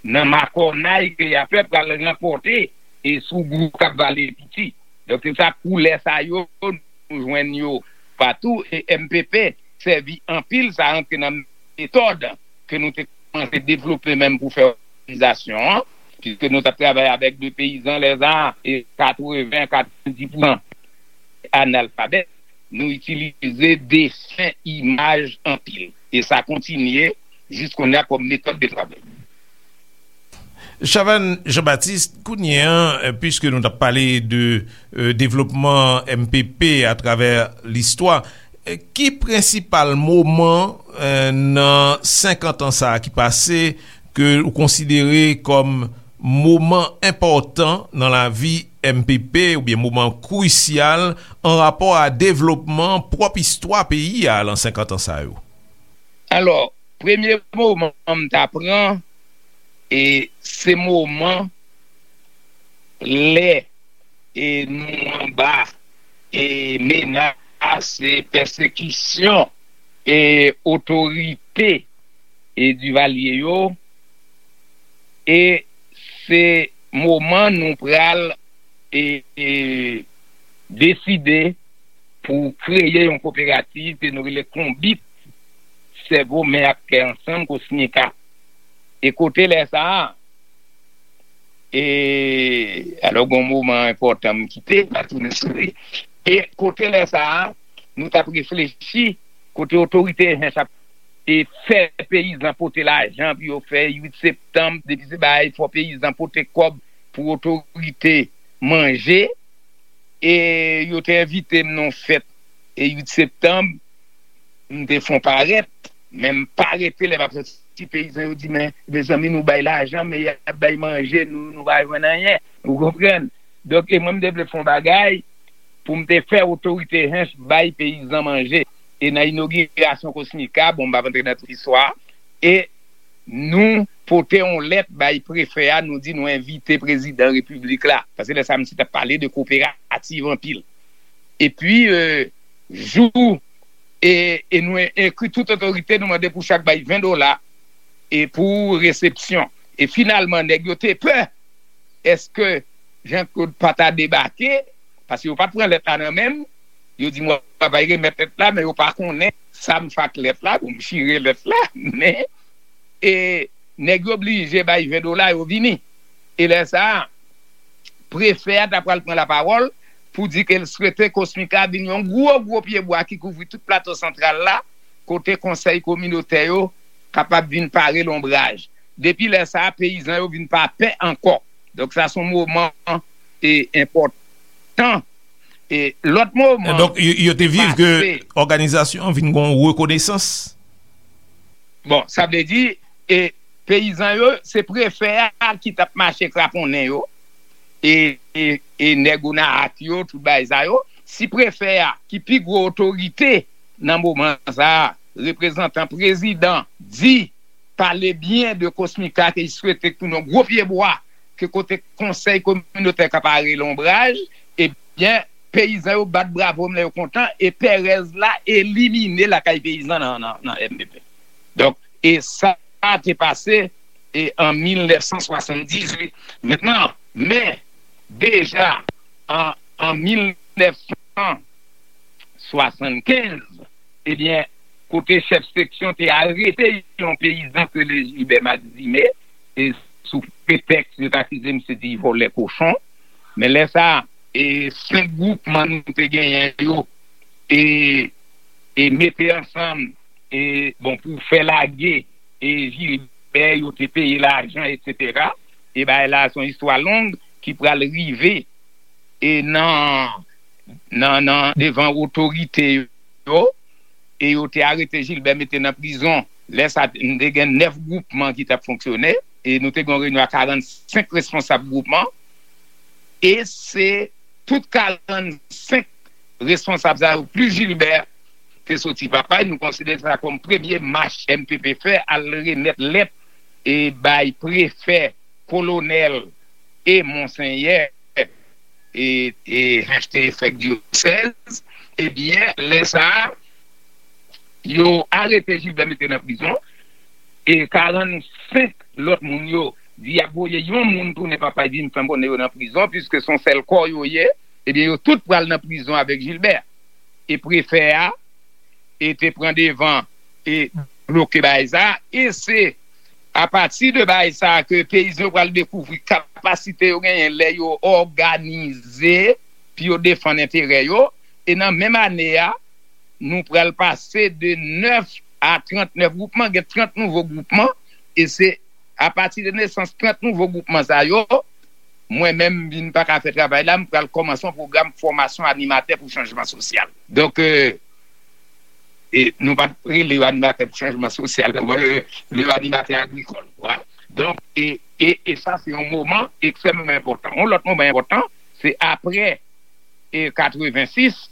nan makònay ke y ap fè pral ranpòte e sougou k ap vale piti. Donk, se sa, koulè sa yo, nou jwenn yo patou, e M P P sèvi anpil, sa rantre nan metòd ke nou te kòmanse devlope menm pou fè òganizasyon an, piske nou t ap travay avèk de peyizan lè sa a, e katreven, katrevendiz pousan analfabèt, nou itilize desen, imaj anpil. E sa kontinye jis kounye a kòm metòd de travay. Chavannes Jean-Baptiste, kounye a, piske nou t ap pale de devlopman M P P atravè listwa, ki prensipal moman nan senkant an sa a ki pase ke ou konsidere kòm moman enpòtan nan lavi M P P oubyen moman krisyal an rapò a devlopman pwòp istwa peyi a lan senkant an sa yo? Alò, premye moman m ta pran, e se moman lè e nou anba e menas e pèsekisyon e otorite e Divalye yo, e se moman nou pral e, e deside pou kreye yon koperativ ke nou rele Konbit, Sèvo, Men ak Kè Ansanm, Kosmika. E kote lè sa a, e alò gen yon moman enpòtan m kite, m a tounen sou li. E kote lè sa a, nou t ap reflechi kote otorite H H ap e fè peyizan pote lajan pou yo fè uit septanm, depi se bagay fò peyizan pote kòb pou otorite manje. E yo te envite m nan yon fèt e uit septanm, m te fè yon parèt, men m pa rete lè m ap soti peyizan yo di, men mezanmi, nou bay lajan men y ap bay manje, nou nou pa jwenn anyen. Ou konprann? Donk e mwen m te vle fè yon bagay pou m te fè otorite H H bay peyizan manje. E nan inogirasyon Kosmika, bon, m p ap antre nan tout istwa, e nou pote yon lèt bay prefè a, nou di nou envite prezidan repiblik la. Paske lè sa a misye t ap pale de koperativ anpil. Epi, e, jou, e, e nou ekri tout otorite, nou mande pou chak bay ven dola e pou resepsyon. E finalman, nèg yo te pè èske Jean Claude pa ta debake, paske yo pa t pran lèt la nan men m. Yo di m w ap al remèt lèt la, men yo pa konnen sa m fè ak lèt la, bon, m chire lèt la, men e nèg yo blije bay ven dola, yo vini. E lè sa a, prefè a ta pral pran lapawòl pou di ke l swete Kosmika vin yon gwo, gwo pyebwa ki kouvri tout Plato Santral la, kote konsèy kominotè yo kapab vin pare lonbraj. Depi lè sa a, peyizan yo vin pa pè ankò. Donk, sa se yon moman e enpòtan. E lòt moman. Donk, yo te viv ke òganizasyon an vin gen yon rekonesans? Bon, sa vle di, e peyizan yo, se prefè a ki t ap mache kraponnen yo, e, e, e nèg Onaak yo, tout bagay sa yo. Si prefè a, ki pi gwo otorite nan moman sa a, reprezantan prezidan, di pale byen de Kosmika, ke li swete k tounen yon gwo pyebwa, ke kote konsèy kominotè ka pare lonbraj, ebyen, peyizan yo bat bravo m lè yo kontan, e pèrèz la elimine lakay peyizan nan, nan, nan M P P. Donk, e sa te pase e an mil nèf san swasanndizuit. Mentnan, men, deja, an, an mil nèf san swasannkenz, ebyen, kote chèf seksyon te arete yon peyizan ke le Gilbert Maxime, e sou pretèks yo t akize misye di vòlè kochon. Men lè sa a, e senk gwoupman nou te genyen yo, e, e mete ansanm, e, bon, pou fè lage, e Gilbert, yo te peye lajan, etsetera. E bagay la, se yon istwa long ki pral rive, e nan, nan, nan, devan otorite yo, e yo te arete Gilbert, mete nan prizon. Lè sa, n te gen nèf gwoupman ki t ap fonksyone, e nou te gen yon reyinyon a karannsenk responsab gwoupman, e se tout karannsenk responsab sa yo, plis Gilbert, te soti papay. Nou konsidere sa kòm premye mach M P P fè, al remèt lèt e bay prefè, kolonèl e monsenyè e, e H T F dyosèz. Ebyen, lè sa a, yo arete Gilbert, mete nan prizon, e karannsenk lòt moun yo, di y ap voye yon moun tounen Papay, di m fè m konnen yo nan prizon, piske se yon sèl kò yo ye, ebyen, yo tout pral nan prizon avèk Gilbert. E prefè a, e te pran devan e bloke bagay sa, e se apati de bagay sa ke peyizan yo pral dekouvri kapasite yo genyen lè yo òganize pou yo defann enterè yo. E nan menm ane a, nou pral pase de nèf a trannèf gwoupman, gen trant nouvo gwoupman, e se apati de nesans trant nouvo gwoupman sa yo, mwen menm, m vin pa ka fè travay la, m pral kòmanse yon pwogram fòmasyon animatè pou chanjman sosyal. Donk, e, e nou pa t rele yo animatè pou chanjman sosyal, nou rele yo animatè agrikòl. Voilà. Donk, e, e, e sa, se yon moman ekstrèmman enpòtan. Yon lòt moman enpòtan, se apre e katrevensis,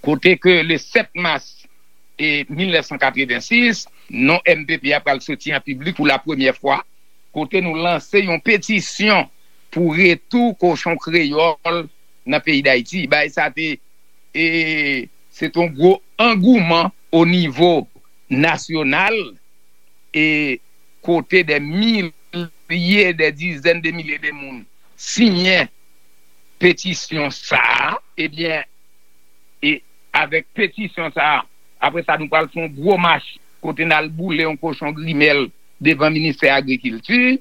kote ke le sèt mas e mil nèf san katrevensis, non M P P a pral soti an piblik pou la premyè fwa, kote nou lanse yon petisyon pou retou kochon kreyòl nan peyi Dayiti. Bagay sa te, e, se te yon gwo angouman o nivo nasyonal, e kote dè milye, dè dizèn de milye de moun siyen petisyon sa a, ebyen, e avèk petisyon sa a, apre sa, nou pral fè yon gwo mach kote n al boule yon kochon grimèl devan ministè agrikilti,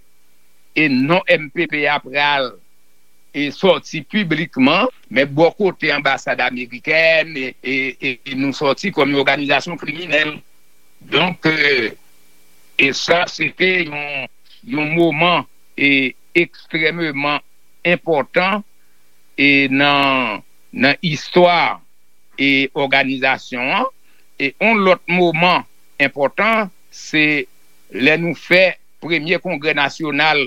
e non M P P a pral e sòti piblikman, men bò kote anbasad amerikèn, e, e, e, e nou sòti kòm yon òganizasyon kriminèl. Donk, e, e sa, se te yon, yon moman, e, ekstrèmeman enpòtan, e, nan, nan istwa, e, òganizasyon an. E yon lòt moman enpòtan, se lè nou fè premye kongrè nasyonal,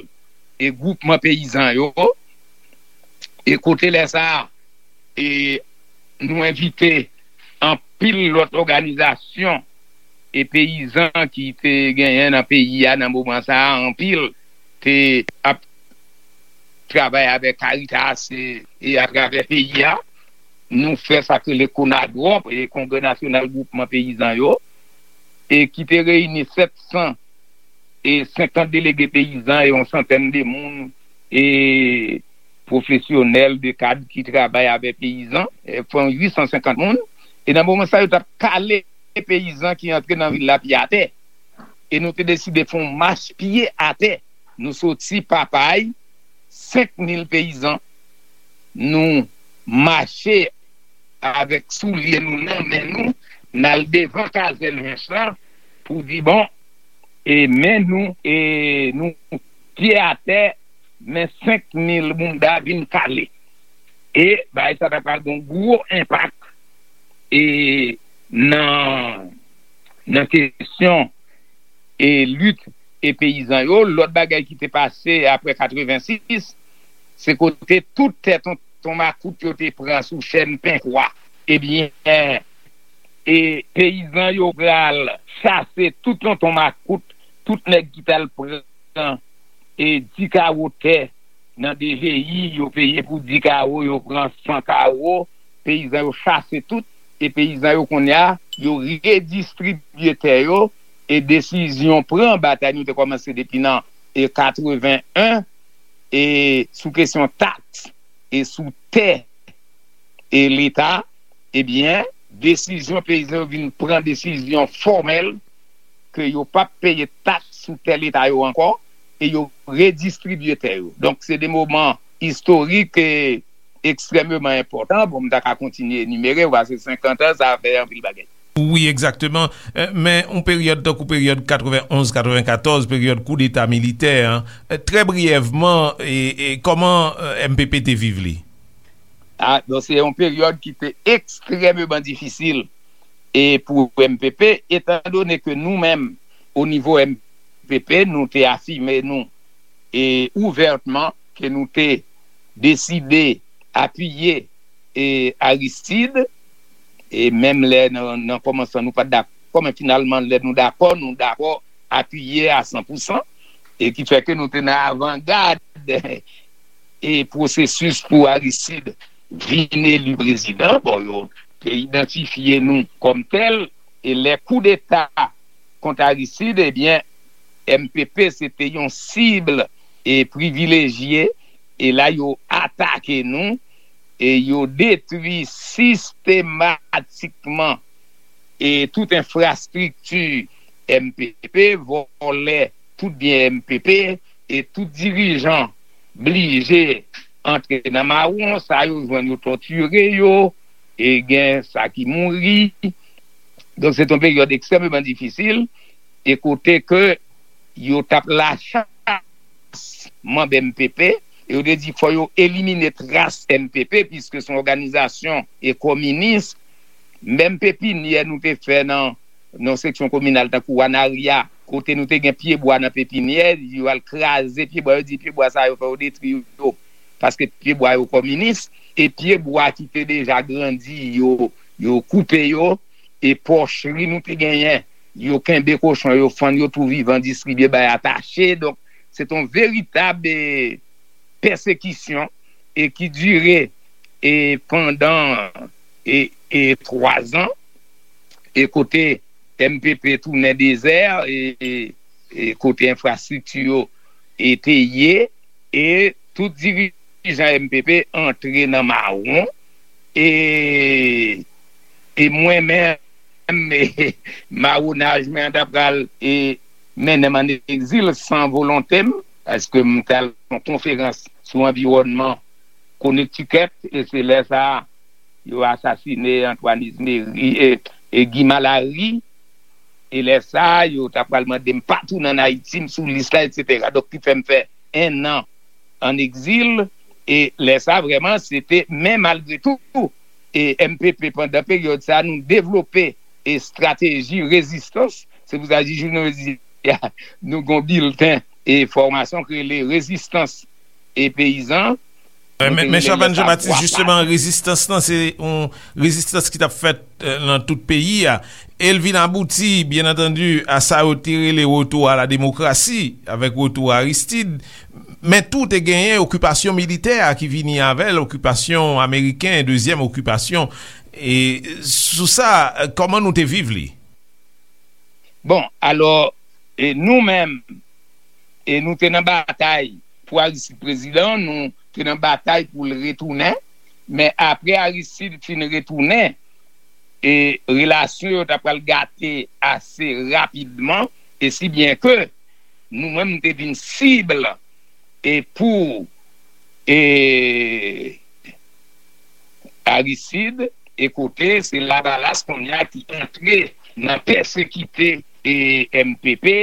e, gwoupman peyizan yo. E kote lè sa a, e, nou envite anpil lòt òganizasyon e peyizan ki te genyen nan peyi a nan moman sa a, anpil te ap travay avèk Caritas e, e atravè peyi a. Nou fè sa k rele Konadwòp, e Kongrè Nasyonal Gwoupman Peyizan yo, e ki te reyini sèt san e senkant delege peyizan e yon santèn de moun, e pwofesyonèl, de kad ki travay avè peyizan, e fè yon uit san senkant moun. E nan moman sa, yo t ap kale peyizan ki antre nan vil la pye atè. E nou te deside fè yon mach pye atè. Nou soti Papay, senk mil peyizan, nou mache avèk soulye nou nan men nou, n al devan kazèn Hens lan pou di, bon, e men nou, e nou pye atè, men senk mil bounda vin kale. E bagay sa ta pral gen yon gwo enpak, e nan, nan kesyon e lit e peyizan yo. Lòt bagay ki te pase apre katrevensis, se kote tout tè tonton makout yo te pran sou chèn Penkwa. Ebyen, e peyizan yo pral chase tout tonton makout, tout nèg ki t al pran e di kawo tè nan D G I, yo peye pou di kawo, yo pran san kawo, peyizan yo chase tout, e peyizan yo kounye a, yo redistribye tè yo, e desizyon pran, batay nou te kòmanse depi nan, e katreven en, e sou kesyon taks, e sou tè, e Leta, ebyen, desizyon peyizan yo vin pran desizyon fòmèl ke yo p ap peye taks sou tè Leta yo ankò, e yo redistribye tè yo. Donk, se de moman istorik e ekstrèmeman enpòtan. Bon, m ta ka kontinye enimere, w a se senkant an, sa fè anpil bagay. Wi, egzakteman. Eh, men yon peryòd tankou peryòd katreven onz katreven katòz, peryòd koudeta militè an, eh, trè briyèvman, e, e kòman, eh, M P P te viv li? A, donk, se yon peryòd ki te ekstrèmeman difisil, e pou M P P, etandone ke nou menm, o nivo M P P, nou te afime nou, e ouvètman, ke nou te deside apiye, e Aristide, e menm lè nan, nan kòmansman nou pa t dakò, men finalman, lè nou dakò, nou dakò apiye a san pou san, e ki fè ke nou te nan avangad e pwosesis pou Aristide vin eli prezidan. Bon, yo te idantifye nou kòm tèl, e lè koudeta kont Aristide, ebyen, M P P se te yon sib e privilejye, e la yo atake nou, e yo detwi sistematikman e tout enfrastrikti M P P, vòlè tout byen M P P, e tout dirijan blije antre nan mawon, sa yo jwenn yo tòtire yo, e gen sa ki mouri. Donk, se te yon peryòd ekstrèmeman difisil, e kote ke yo t ap lachas manm M P P, e yo te di fò yo elimine tras M P P, piske se yon òganizasyon e kominis. Menm pepinyè nou te fè nan, nan seksyon kominal, tankou Wanaria, kote nou te gen pyebwa nan pepinyè, yo al kraze pyebwa, yo di pyebwa sa yo fò yo detwi yo, paske pyebwa yo kominis, e pyebwa ki te deja grandi, yo, yo koupe yo, e pòchri nou te genyen, yo kenbe kochon, yo fann yo tou vivan, distribye bay atache. Donk, se te yon veritab, e, pèsekisyon, e ki dire, e, pandan, e, e, twa zan, e kote M P P tounen dezè, e, e, e kote enfrastrikti yo, e, te ye, e tout dirijan M P P antre nan mawon, e, e mwen menm, e, mawonaj mwen an ta pral, e, mennen m an egzil san volonte m, paske m t al yon konferans sou anviwònman Connecticut, e se lè sa a, yo asasine Antoine Exumeri, e, e Guy Malary, e lè sa a, yo ta pral mande m pa tounen ann Ayiti, m sou lis la, etsetera. Donk, ki fè m fè en an ann egzil, e lè sa a, vrèman, se te, men malgre tou, e M P P, pandan peryòd sa a, nou devlope e estrateji rezistans. Se pou sa, jis jounen jodi a, nou gen yon bilten e fòmasyon ki rele Rezistans e Peyizan. Men, men Chavannes Jean-Baptiste, jisteman, rezistans lan, se yon rezistans ki t ap fèt, eh, nan tout peyi a. E l vin abouti, byen antandi, a sa yo te rele retour à la démocratie, avèk retou Aristide. Men tou te genyen okipasyon militè a ki vini avè l, okipasyon ameriken, dezyèm okipasyon. E sou sa, eh, kòman nou te viv li? Bon, alò, e nou menm, e nou te nan batay pou Aristide prezidan, nou te nan batay pou l retounen, men apre Aristide fin retounen, e relasyon yo ta pral gate ase rapidman, e si byen ke nou menm, nou te vin sib e pou, e, Aristide, e kote se Lavalas kounye a ki antre nan pèsekite, e, M P P,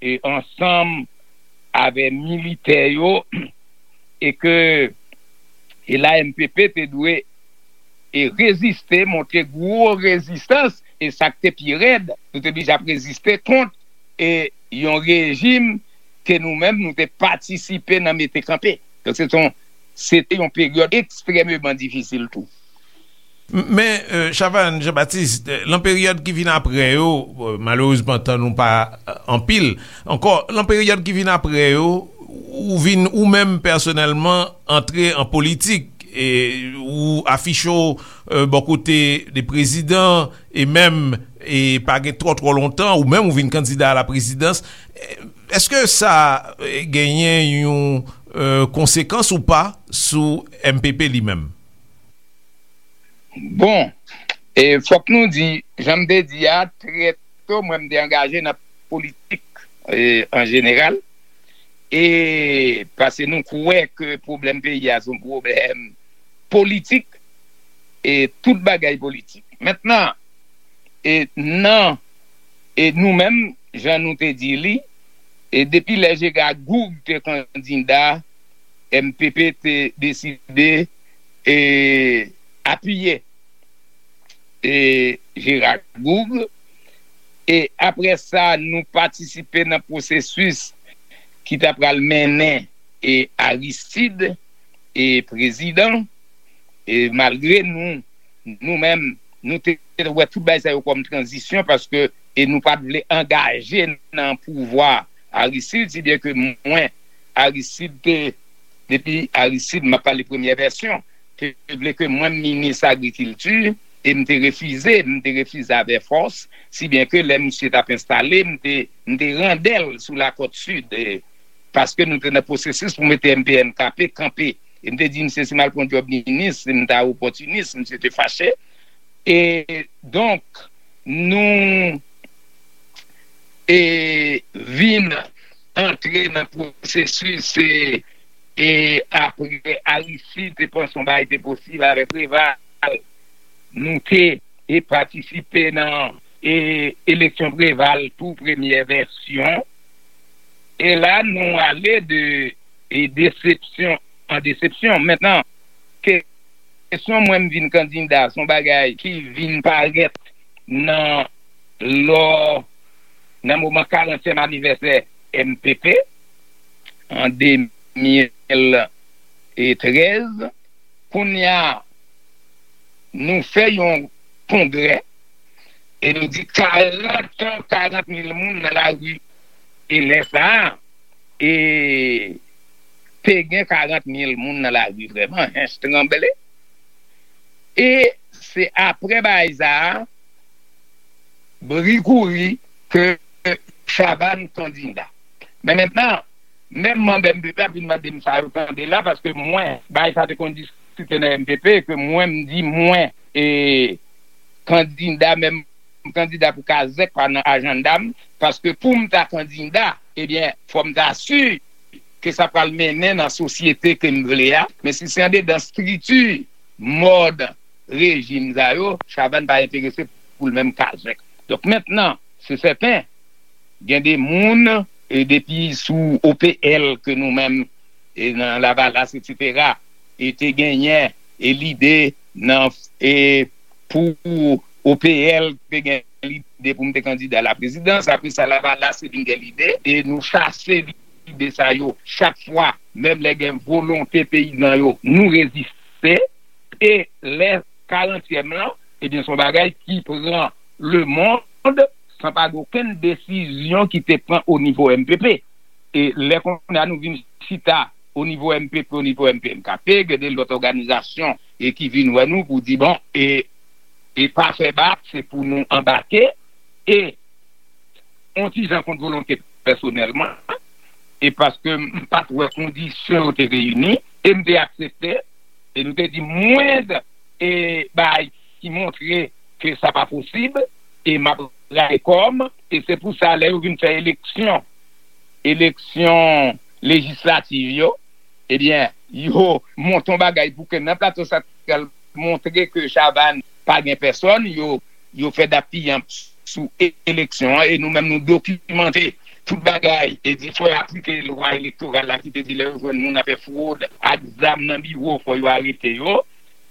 e, ansanm avè militè yo, e ke, e la M P P te dwe, e, reziste, montre gwo rezistans, e sa k te pi rèd, nou te blije ap reziste kont, e, yon rejim ke nou menm nou te patisipe nan mete kanpe. Donk, se te yon, se te yon peryòd ekstrèmeman difisil tou. Men, eh, Chavannes Jean-Baptiste, eh, lan peryòd ki vin apre yo, eh, malerezman, tan nou pa, eh, anpil ankò, lan peryòd ki vin apre yo, ou vin, ou menm pèsonèlman, antre an politik, e ou afiche w, eh, bò kote de prezidan, e menm, e pa gen twò, twò lontan, ou menm ou vin kandida a la prezidans. Eh, èske sa, eh, genyen yon, eh, konsekans ou pa sou M P P li menm? Bon, e fòk nou di, jan m te di a, trè to, mwen m te angaje nan politik, e, an jeneral, e paske nou kwè ke pwoblèm peyi a se yon pwoblèm politik, e tout bagay politik. Mentnan, e nan, e nou menm, jan nou te di li, e depi lè Jera Goug te kandida, M P P te deside, e, apiye, e, Jera Goug. E apre sa, nou patisipe nan pwosesis ki ta pral mennen, e, Aristide, e, prezidan. E malgre nou, nou menm, nou te wè tout bagay sa yo kòm tranzisyon, paske, e, nou pa t vle angaje nan pouvwa Aristide, si byen ke mwen, Aristide te, depi Aristide, m ap pale premyè vèsyon, te vle ke mwen m minis agrikilti, e m te refize, m te refize avè fòs, si byen ke lè misye t ap enstale, m te, m te randè l sou Lakòt Sid, e, paske nou te nan pwosesis pou mete M P N K P kanpe. E m te di misye, si m al pran djòb minis, m ta opòtinis, misye te fache. E donk, nou e vin antre nan pwosesis, e, e apre Aristide te panse yon bagay te posib avè Preval, nou te e patisipe nan e eleksyon Preval tou premyè vèsyon. E la nou ale de e desepsyon an desepsyon. Mentnan, kesyon mwen m vin kandida, se yon bagay ki vin parèt nan lò, nan moman karantyèm anivèsè M P P an de mil trèz. Kounye a, nou fè yon kongrè e nou di karant, karant mil moun nan lari. E lè sa a, e te gen karant mil moun nan lari vrèman, Hinche tranble. E se apre bagay sa a, bri kouri ke Chavannes kandida. Men mentnan, menm manm M P P ap vin mande m sa yo tande la, paske mwen, bagay sa te konn diskite nan M P P, ke mwen m di mwen, e kandida, menm kandida pou Kazèk pa nan ajanda m, paske pou m ta kandida, ebyen, fò m ta si ke sa pral mennen nan sosyete ke m vle a, men si se andedan estrikti, mòd, rejim sa yo, Chavannes pa enterese pou l menm Kazèk. Donk, mentnan, se sèten, gen de moun, e depi sou O P L ke nou menm, e nan Lavalas, etsetera, e te genyen, e lide nan, e pou O P L te gen lide pou m te kandida laprezidans, apre sa Lavalas te vin gen lide, e nou chase lide sa yo chak fwa, menm lè gen volonte peyizan yo, nou reziste, e lè karantyèm lan, ebyen, se yon bagay ki pran lemonn san pa gen okenn desizyon ki te pran o nivo M P P. E lè kounye a nou vin chita o nivo M P P, o nivo M P N K P, gen de lòt òganizasyon e ki vin wè nou pou di, bon, e, e pa fè bak, se pou nou anbake, e yon ti jan kont volonte pèsonèlman, e paske m pa t wè kondisyon yo te reyini, e m te aksepte, e nou te di mwen, e bagay ki montre ke sa pa posib, e m ap rale kò m, e se pou sa lè yo vin fè eleksyon, eleksyon lejislativ yo, ebyen, yo monte yon bagay pou ke nan Plato Santral montre ke Chavannes pa gen pèsòn, yo, yo fè dappiyanp sou e-, eleksyon an, e nou menm nou dokimante tout bagay, e di fò yo aplike lwa elektoral la ki te di lè yo jwenn moun ap fè fwod ak zam nan biwo, fò yo arete yo,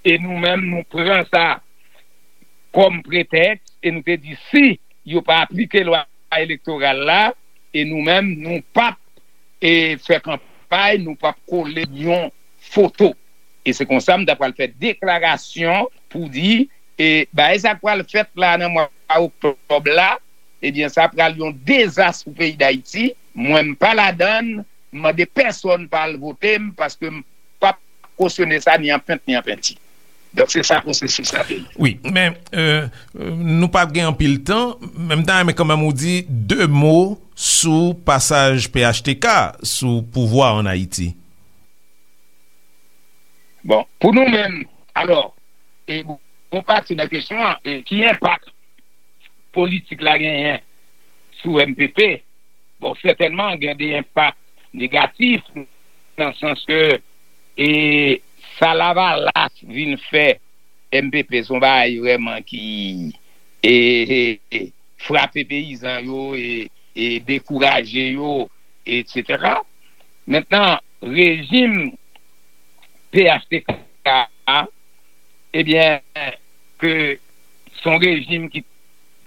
e nou menm nou pran sa kòm pretèks, e nou te di si yo pa aplike lwa elektoral la, e nou menm nou p ap, e, fè kanpay, nou p ap kole yon foto. E se konsa m ta pral fè deklarasyon pou di, e bagay sa k pral fèt la nan mwa oktòb la, ebyen, sa pral yon dezas pou peyi Dayiti. Mwen, m pa ladann, m mande pèsòn pa al vote m, paske m p ap kosyone sa ni an pent ni an penti. Donk, se sa pwosesis la te ye. Wi, men, euh, euh, nou pa gen anpil tan, men m ta renmen kanmenm ou di de mo sou pasaj P H T K sou pouvwa an Ayiti. Bon, pou nou menm, alò, e bon, bon pati nan kesyon an, e ki enpak politik la genyen sou M P P? Bon, sètènman, gen de enpak negatif, nan sans ke, e, sa Lavalas vin fè M P P, se yon bagay vrèman ki, e, e, e, frape peyizan yo, e, e dekouraje yo, etsetera. Mentnan, rejim P H T K a, ebyen, ke se yon rejim ki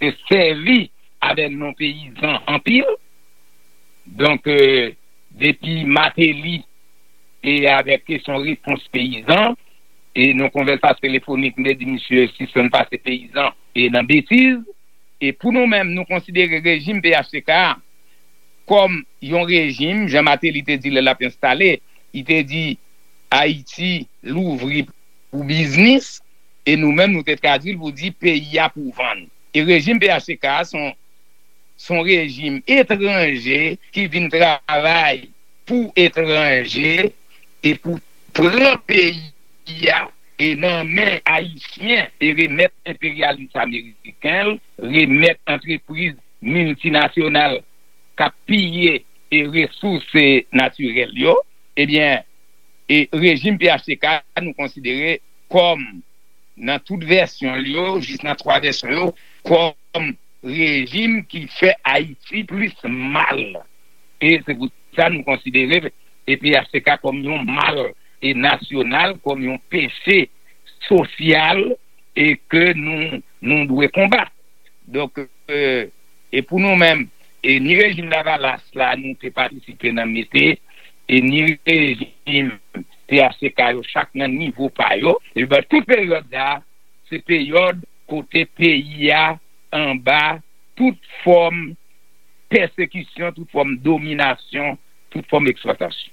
te sèvi avè non peyizan anpil. Donk, e, depi Martelly e avèk kesyon repons peyizan, e nan konvèsasyon telefonik, m te di misye sispann pase peyizan e nan betiz. E pou nou menm, nou konsidere rejim P H T K a kòm yon rejim, jan Martelly te di lè l ap enstale, li te di Ayiti louvri pou biznis, E nou menm, nou te tradui l pou di peyi a pou vann. E rejim P H T K a se yon, se yon rejim etranje ki vin travay pou etranje e pou pran peyi a e nan men Ayisyen e remèt enperyalis ameriken l, remèt antrepriz miltinasyonal k ap piye e resous natirèl yo, ebyen, e rejim P H T K nou konsidere kòm, nan tout vèsyon l yo, jis nan twa vèsyon yo, kòm rejim ki fè Ayiti plis mal. E se pou sa nou konsidere e P H T K kòm yon mal e nasyonal, kòm yon peche sosyal e ke nou, nou dwe konbat. Donk, e, e pou nou menm, e ni rejim Lavalas la, nou te patisipe nan mete, e ni rejim P H T K yo, chak nan nivo pa yo, e ben, tout peryòd sa, se peryòd kote peyi a anba tout fòm pèsekisyon, tout fòm dominasyon, tout fòm eksplwatasyon.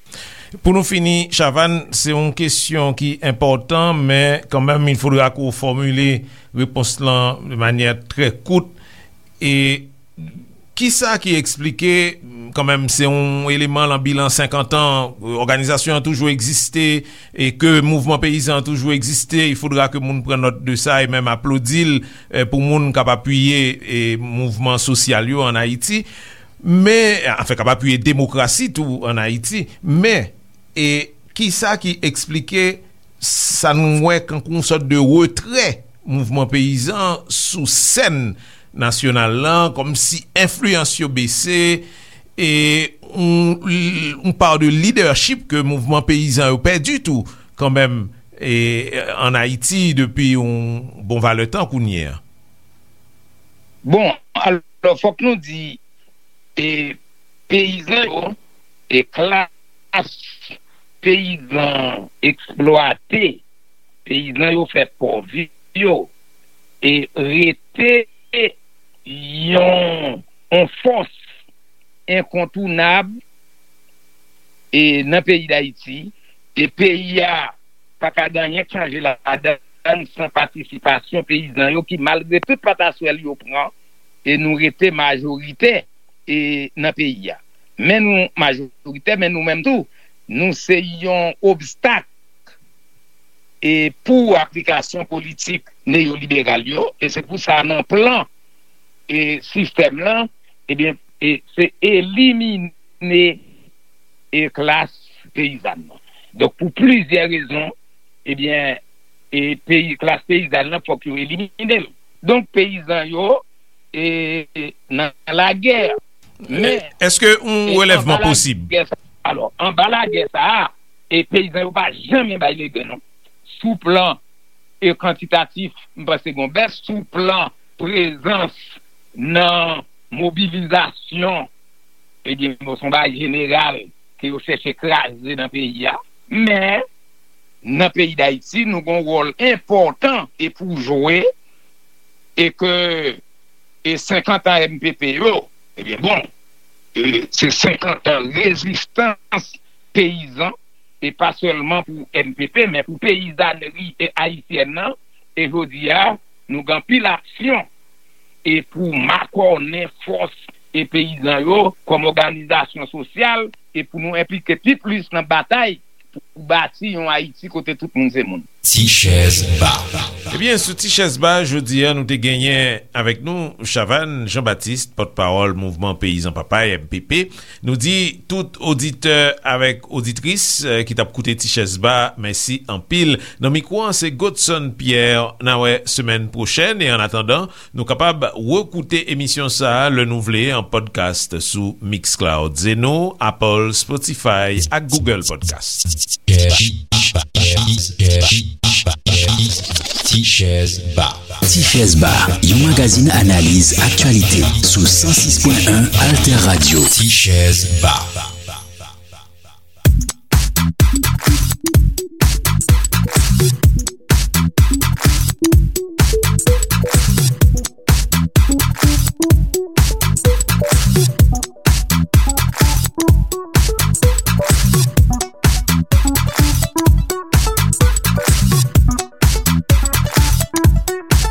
Pou nou fini, Chavannes, se yon kesyon ki enpòtan, men kanmenm, il faudra ke w fòmile repons lan de manyè trè kout. E kisa ki eksplike, kanmenm, se yon eleman lan bilan senkant an, òganizasyon an toujou egziste, e ke mouvman peyizan an toujou egziste, il faudra ke moun pran nòt de sa e menm aplodi l, e, pou moun k ap apiye, e, mouvman sosyal yo ann Ayiti. Men, anfen, k ap apiye demokrasi tou ann Ayiti. Men, e kisa ki eksplike sa nou wè kankou yon sòt de retrè mouvman peyizan sou sèn nasyonal lan, kòmsi enfliyans yo bese, e yon, yon pa de lidèchip ke mouvman peyizan yo pèdi tou, kanmenm, e, ann Ayiti depi yon bon valè tan kounye a? Bon, alò, fòk nou di, e, peyizan yo, e klas peyizan eksplwate, peyizan yo fè pòv yo, e rete yon, yon fòs enkontounab, e nan peyi Dayiti, e peyi a pa ka gen anyen k chanje ladann san patisipasyon peyizan yo ki, malgre tout pataswèl yo pran, e nou rete majoritè, e nan peyi a. Men nou majoritè, men nou menm tou, nou se yon obstak, e pou aplikasyon politik neyoliberal yo, e se pou sa nan plan, e sistèm lan, ebyen, e se elimine, e klas peyizàn nan. Donk, pou plizyè rezon, ebyen, e peyi, klas peyizàn nan, fòk yo elimine l. Donk, peyizan yo, e, e nan lagè. Men, èske yon e relèvman anba posib? Lagè sa, alò, anba lagè sa a, e peyizan yo pa janmen bay legen, non. Sou plan, e kantitatif, m panse gon bès. Sou plan prezans nan mobilizasyon, ebyen, bon, se yon bagay jeneral ke yo chèche kraze nan peyi a. Men, nan peyi Dayiti, nou gon wòl enpòtan e pou jwe, e ke, e senkant an M P P yo, ebyen, bon, e se senkant an rezistans peyizan, e pa sèlman pou M P P, men pou peyizanri, e, ayisyèn nan. E jodi a, nou gen anpil aksyon, e pou makònen fòs, e peyizan yo kòm òganizasyon sosyal, e pou nou enplike pi plis nan batay pou bati yon Ayiti kote tout moun se moun. Ti chèz ba. Ebyen, sou Ti chèz ba, jodi a, nou te genyen avèk nou Chavannes Jean-Baptiste, pòtpawòl Mouvman Peyizan Papay, M P P. Nou di tout oditè avèk oditris, eh, ki t ap koute Ti chèz ba, mèsi anpil. Nan mikwo an, se Godson Pierre. N a wè semèn pwochèn, e annatandan, nou kapab rekoute emisyon sa a lè nou vle an podcast sou Mixcloud, Zeno, Apple, Spotify ak Google Podcast. Ti chèz ba. Ti chèz ba, yon magazin analiz aktyalite sou san sis pwen en Alter Radio. Ti chèz ba.